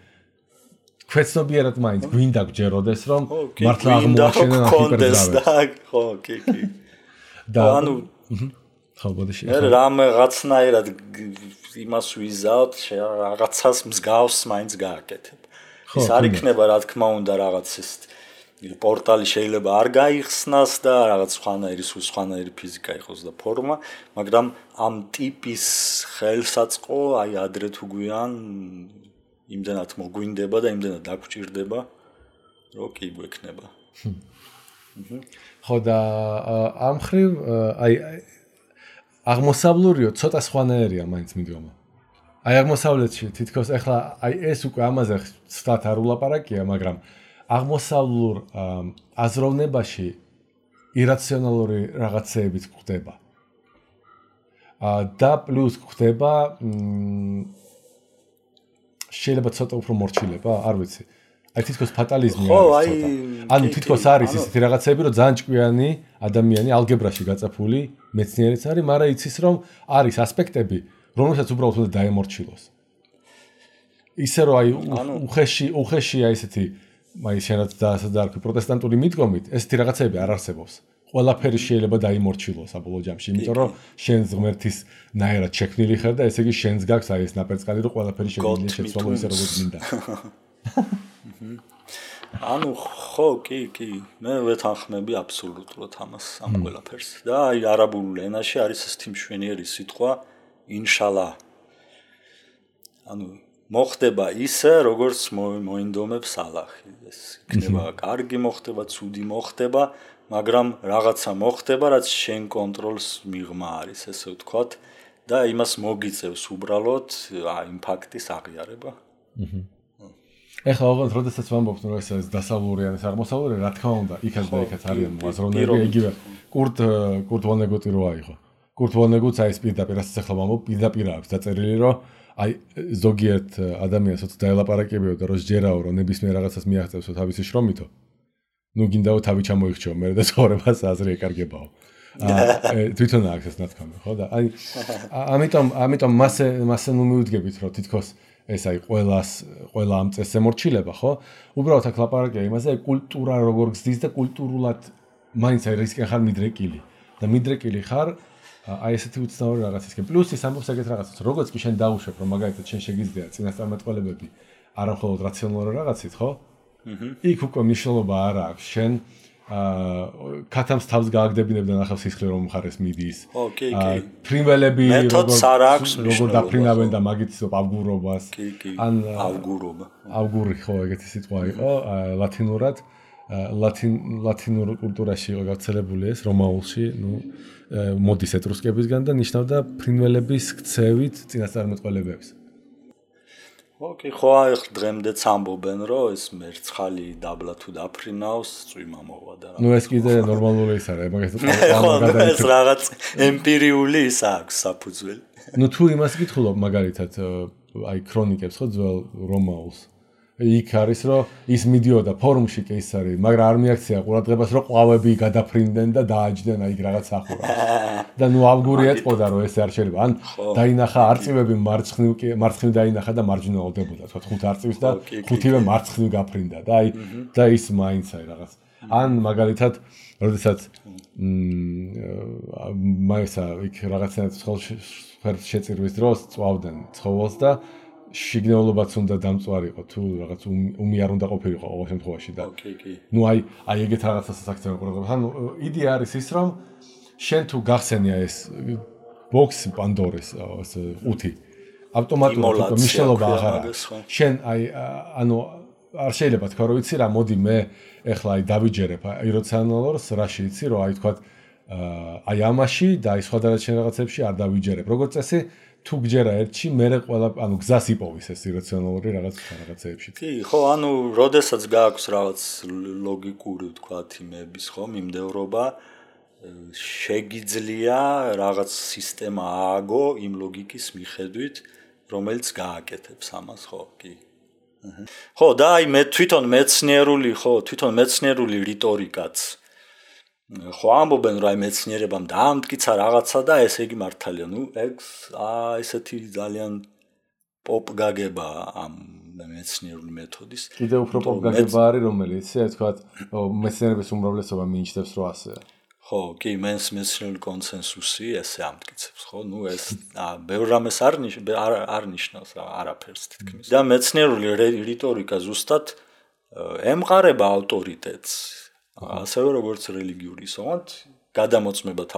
ქვეცნობიერად მაინც გვინდა გჯეროდეს, რომ მართლა აღმოაჩენენ ჰიპერძრავებს. ხო, კი. და ანუ ხო, ბოდიში. მე რაღაცნაირად იმას ვიზავთ, რაღაცას მსგავს მაინც გააკეთებ. ის არ იქნება, რა თქმა უნდა, რაღაც ეს პორტალი შეიძლება არ გაიხსნას და რაღაც სხვანაირი ფიზიკა იყოს და ფორმა, მაგრამ ამ ტიპის ხელსაწყო აი ადრე თუ გვიან იმდენად მოგვინდება და იმდენად დაგჭირდება, რომ კი გვექნება. ხო და ამ ხრივ აი აღმოსავლურიო ცოტა სხვანაირია მაინც მიდგომა. აი აღმოსავლეთში თითქოს ახლა აი ეს უკვე ამაზე ცოტა არ ულაპარაკია, მაგრამ აღმოსავლურ აზროვნებაში ირაციონალური რაღაცეებიც გვხდება. და პლუს გვხდება შეიძლება ცოტა უფრო მორჩილება, არ ვიცი. აი თითქოს ფატალიზმი არის ცოტა. ანუ თითქოს არის ისეთი რაღაცები, რომ ძალიან ჭკვიანი ადამიანი ალგებრაში გაწაფული მეცნიერიც არის, მაგრამ იცის რომ არის ასპექტები, რომელსაც უბრალოდ უნდა დაემორჩილოს. ისე რომ აი უხეში აი ესეთი აი შენაც დაასადარქი პროტესტანტული მიდგომით, ესეთი რაღაცები არ არსებობს. ყველაფერი შეიძლება დაიმორჩილოს საბოლოო ჯამში, იმიტომ რომ შენს ღმერთის ნაერად შექმნილი ხარ და ესე იგი შენს გაქვს აი ეს ნაპერწკალი, რომ ყველაფერი შეგვიძლია შეცვალო ისე როგორც მინდა. ანუ ხო, კი, მე ვეთანხმები აბსოლუტურად ამას ამ ყველაფერს. და აი არაბულ ენაში არის ესეთი მშვენიერი სიტყვა ინშალა. ანუ მოხდება ისე, როგორც მოინდომებს ალაჰი. ეს იქნება კარგი მოხდება, ცუდი მოხდება, მაგრამ რაღაცა მოხდება, რაც შენ კონტროლს მიღმა არის, ესე ვთქვათ, და იმას მოგიწევს უბრალოდ იმ ფაქტის აღიარება. ეხლა ოღონდ როდესაც ვამბობთ, რომ ეს არის დასავლური ან აღმოსავლური, რა თქმა უნდა, იქაც და იქაც არიან მოაზროვნეები, იგივე კურტ ვონეგუტი რო აიღო. კურტ ვონეგუტს აი ეს პირდაპირ რასაც ახლა ვამბობ, პირდაპირ აქვს დაწერილი, რომ აი ზოგიერთ ადამიანს ოცი დაელაპარაკებიო და რო სჯერაო, რომ ნებისმიერ რაღაცას მიაღწევსო თავისი შრომითო. ნუ გინდაო თავი ჩამოიხჩიო, მე და ცხოვრებას აზრი ეკარგებაო. თვითონ აქვს ეს ნათქვამი, ხო და აი ამიტომ მასე ნუ მივიდგებით, რომ თითქოს ეს აი ყველა ამ წესს ემორჩილება, ხო? უბრალოდ აქ ლაპარაკია იმაზე, კულტურა როგორ გზდის და კულტურულად მაინც აი რისკენ ხარ მიდრეკილი. და მიდრეკილი ხარ აი ესეთი უცნაური რაღაცისკენ. პლუს ის ამბობს ეგეთ რაღაცას, როგორც კი შენ დაუშვებ, რომ მაგალითად შენ შეგიძლია წინასწარმეტყველებები არა მხოლოდ რაციონალური რაღაცით, ხო? იქ უკვე მნიშვნელობა არ აქვს. შენ კათამს თავს გააგდებინებ და ნახავს სისხლი რომ მხარეს მიდის. ფრინველები როგორ დაფრინავენ და მაგით ავგურობას. ან ავგურობა. ავგური ხო ეგეთი სიტყვა იყო ლათინურად. ლათინურ კულტურაში იყო გავრცელებული ეს რომაულში, ნუ მოდის ეტრუსკებისგან და ნიშნავდა ფრინველების ქცევით წინასწარმეტყველებებს. ოკეი, ხო, ახლა დღემდეც ამბობენ, რომ ეს მერცხალი დაბლა თუ დაფრინავს, წვიმა მოვა და რა. ნუ ეს კიდე ნორმალური ის არის, მაგას ეს რაღაც ემპირიული ის აქვს საფუძველი. ნუ თუ იმას გითხულობ მაგალითად აი ქრონიკებს ხო ძველ რომაულს. იქ არის რომ ის მიდიოდა ფორუმში კი ის არის, მაგრამ არ მიაქცია ყურადღებას რომ ყვავები გადაფრინდნენ და დააჯდნენ აი რაღაც ახურავს. და ნუ ავგური ეტყოდა რომ ეს არ შეიძლება. ან დაინახა არწივები მარცხნივ დაინახა და მარჯვნივ ავდებოდა, თქვა 5 არწივის და 5-ვე მარცხნივ გაფრინდა და აი და ის მაინც აი რაღაც. ან მაგალითად, როდესაც მაისა იქ რაღაცნაირად ხელს შეწირვის დროს წვავდნენ ცხოველს და შიგნეულობაც უნდა დამწვარიყო თუ რაღაც უმი არ უნდა ყოფილიყო ყოველ შემთხვევაში და ნუ აი ეგეთ რაღაცასაც აქცევენ ყურადღებას. ანუ იდეა არის ის რომ შენ თუ გახსენია ეს ბოქსი პანდორის ეს ყუთი ავტომატურად მნიშვნელობა აღარ აქვს. შენ აი ანუ არ შეიძლება თქვა რომ იცი რა მოდი მე ეხლა აი დავიჯერებ ირაციონალურს რაში იცი რომ აი თქვა აი ამაში და აი სხვადასხვა შენ რაღაცებში არ დავიჯერებ. როგორც წესი თუ გჯერა ერთში, მერე ყველა, ანუ გზას იპოვის ეს ირაციონალური რაღაცეებში. კი, ხო, ანუ როდესაც გააქვს რაღაც ლოგიკური, ვთქვათ, იმების, ხო, მიმდევრობა, შეგიძლია რაღაც სისტემა ააგო იმ ლოგიკის მიხედვით, რომელიც გააკეთებს ამას, ხო, კი. ხო, და აი მე თვითონ მეცნიერული რიტორიკაც ხო ამბობენ რომ აი მეცნიერებამ დაამტკიცა რაღაცა და ესე იგი მართალია, ნუ ესეთი ძალიან პოპ გაგება ამ მეცნიერული მეთოდის. კიდევ უფრო პოპ გაგება არის რომელიც, ასე ვთქვათ, მეცნიერების უმრავლესობა მიიჩნევს რომ ასეა. ხო, კი, მეცნიერული კონსენსუსი ესე ამტკიცებს, ხო, ნუ ეს ბევრ რამეს არ ნიშნავს არაფერს თითქმის. და მეცნიერული რიტორიკა ზუსტად ემყარება ავტორიტეტს. ასევე როგორც რელიგიური ისოღონდ გადამოწმებად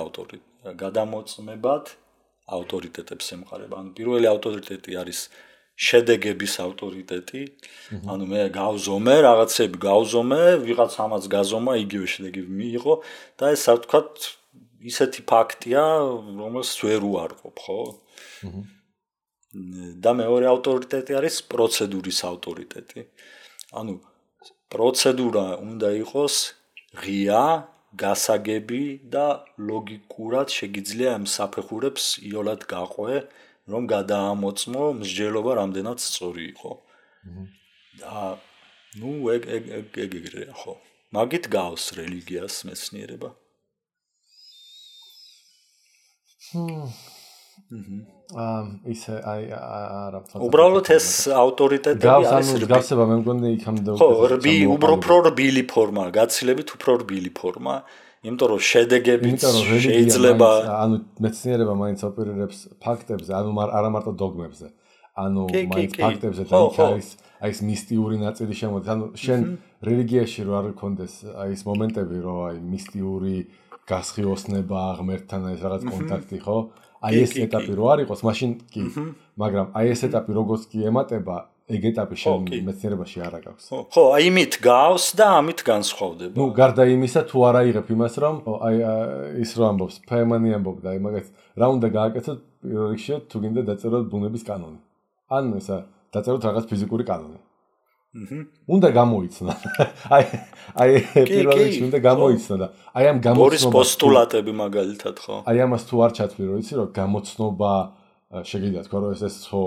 ავტორიტეტებს ემყარება. ანუ პირველი ავტორიტეტი არის შედეგების ავტორიტეტი. ანუ მე გავზომე, რაღაცები გავზომე, ვიღაც ამას გაზომა, იგივე შედეგები მიიღო და ეს ასე ვთქვათ ისეთი ფაქტია, რომელსაც ვერ უარყოფ, ხო? და მეორე ავტორიტეტი არის პროცედურის ავტორიტეტი. ანუ პროცედურა უნდა იყოს ღია, გასაგები და ლოგიკურად შეგიძლია ამ საფეხურებს იოლად გაყვე, რომ გადაამოწმო მსჯელობა რამდენად სწორი იყო. ნუ ეგრეა ხო. მაგით გავს რელიგიას მეცნიერება. ისე არა. უბრალოდ ეს ავტორიტეტები არის გავსება მე მგონი იქამდე ხო, უფრო რბილი ფორმა, გაცილებით უფრო რბილი ფორმა, იმიტომ რომ შედეგებიც შეიძლება ანუ მეცნიერება მაინც ოპერირებს ფაქტებზე, ანუ არა მარტო დოგმებზე. ანუ მაინც ფაქტებზე და აი ეს მისტიური ნაწილი შემოდის. ანუ შენ რელიგიაში რო არ გქონდეს აი ეს მომენტები, რომ აი მისტიური გასხიოსნება ღმერთთან ეს რაღაც კონტაქტი, ხო? აი ეს ეტაპი რო არ იყოს, მაშინ კი. მაგრამ აი ეს ეტაპი როგორც კი ემატება, ეგ ეტაპი შენ მეცნიერებაში არ აქვს. ხო, აი იმით გავს და ამით განსხვავდება. ნუ გარდა იმისა, თუ არ აიღებ იმას, რომ აი ის რო ამბობს, ფეიმანი ამბობდა, აი მაგას რა უნდა გააკეთოთ პირველ რიგში, თუ გინდა დაწეროთ ბუნების კანონი. ან ესა დაწეროთ რაღაც ფიზიკური კანონი. უნდა გამოიცნო. აი პირველ რიგში უნდა გამოიცნო და აი ამ გამოცნობა ბორის პოსტულატები მაგალითად ხო? აი ამას თუ არ ჩათვლი, რომ იცი რომ გამოცნობა შეგიძლია თქვა რომ ეს ხო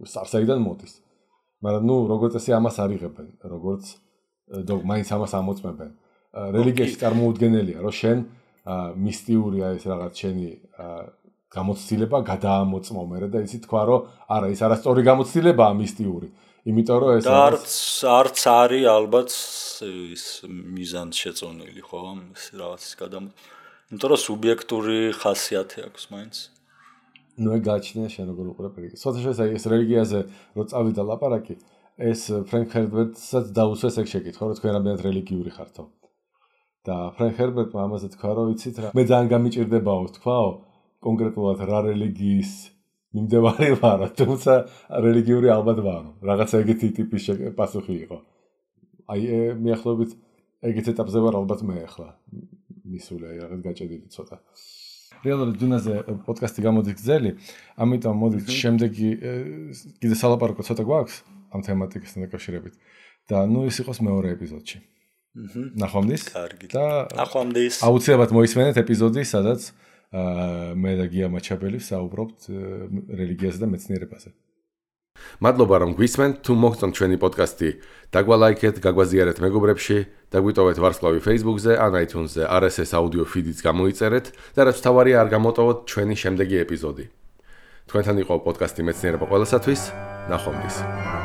სარსაიდან მოდის. მაგრამ ნუ როგორც ესე ამას არიღებენ, როგორც მაინც ამას ამოწმებენ. რელიგიაში წარმოუდგენელია, რომ შენ მისტიურია ეს რაღაც შენი გამოცდილება გადაამოწმო მერე და იცი თქვა რომ არა ის არასწორი გამოცდილებაა მისტიური. იმიტომ რომ ეს არც არის ალბათ ის მიზანს შეწონილი ხო ეს რაღაცის იმიტომ რომ სუბიექტური ხასიათი აქვს მაინც. ნუ ეგ გააჩნია შენ როგორ უყურებ რელიგიას. ცოტა შეიძლება ეს რელიგიაზე რო წავიდა ლაპარაკი, ეს ფრენკ ჰერბერტსაც დაუსვეს ეგ შეკითხვა, რომ თქვენ რამდენად რელიგიური ხართო. და ფრენკ ჰერბერტმა ამაზე თქვა, რომ იცით რა, მე ძალიან გამიჭირდებაო თქვაო, კონკრეტულად რა რელიგიის მიმდევარი ვარო, თუმცა რელიგიური ალბათ ვარო. რაღაცა ეგეთი ტიპის პასუხი იყო. აი მიახლოებით ეგეთ ეტაპზე ვარ ალბათ მე ახლა. მისული აი რაღაც გაჭედილი ცოტა. რეალურად დუნაზე პოდკასტი გამოდის გზელი, ამიტომ მოდით შემდეგი კიდე სალაპარაკო ცოტა გვაქვს ამ თემატიკასთან დაკავშირებით. და ნუ ის იყოს მეორე ეპიზოდში. ნახვამდის. კარგი. და ნახვამდის. აუცილებლად მოისმენეთ ეპიზოდი, სადაც მე და გია მაჩაბელი საუბრობთ რელიგიაზე და მეცნიერებაზე. მადლობა რომ გვისმენთ, თუ მოგწონთ ჩვენი პოდკასტი, დაგვალაიქეთ, გაგვაზიარეთ მეგობრებში, დაგვიტოვეთ ვარსკვლავი Facebook-ზე, ან iTunes-ზე, RSS audio feed-იც გამოიწერეთ და რაც თავარია არ გამოტოვოთ ჩვენი შემდეგი ეპიზოდი. თქვენთან იყო პოდკასტი მეცნიერება ყველასათვის, ნახვამდის.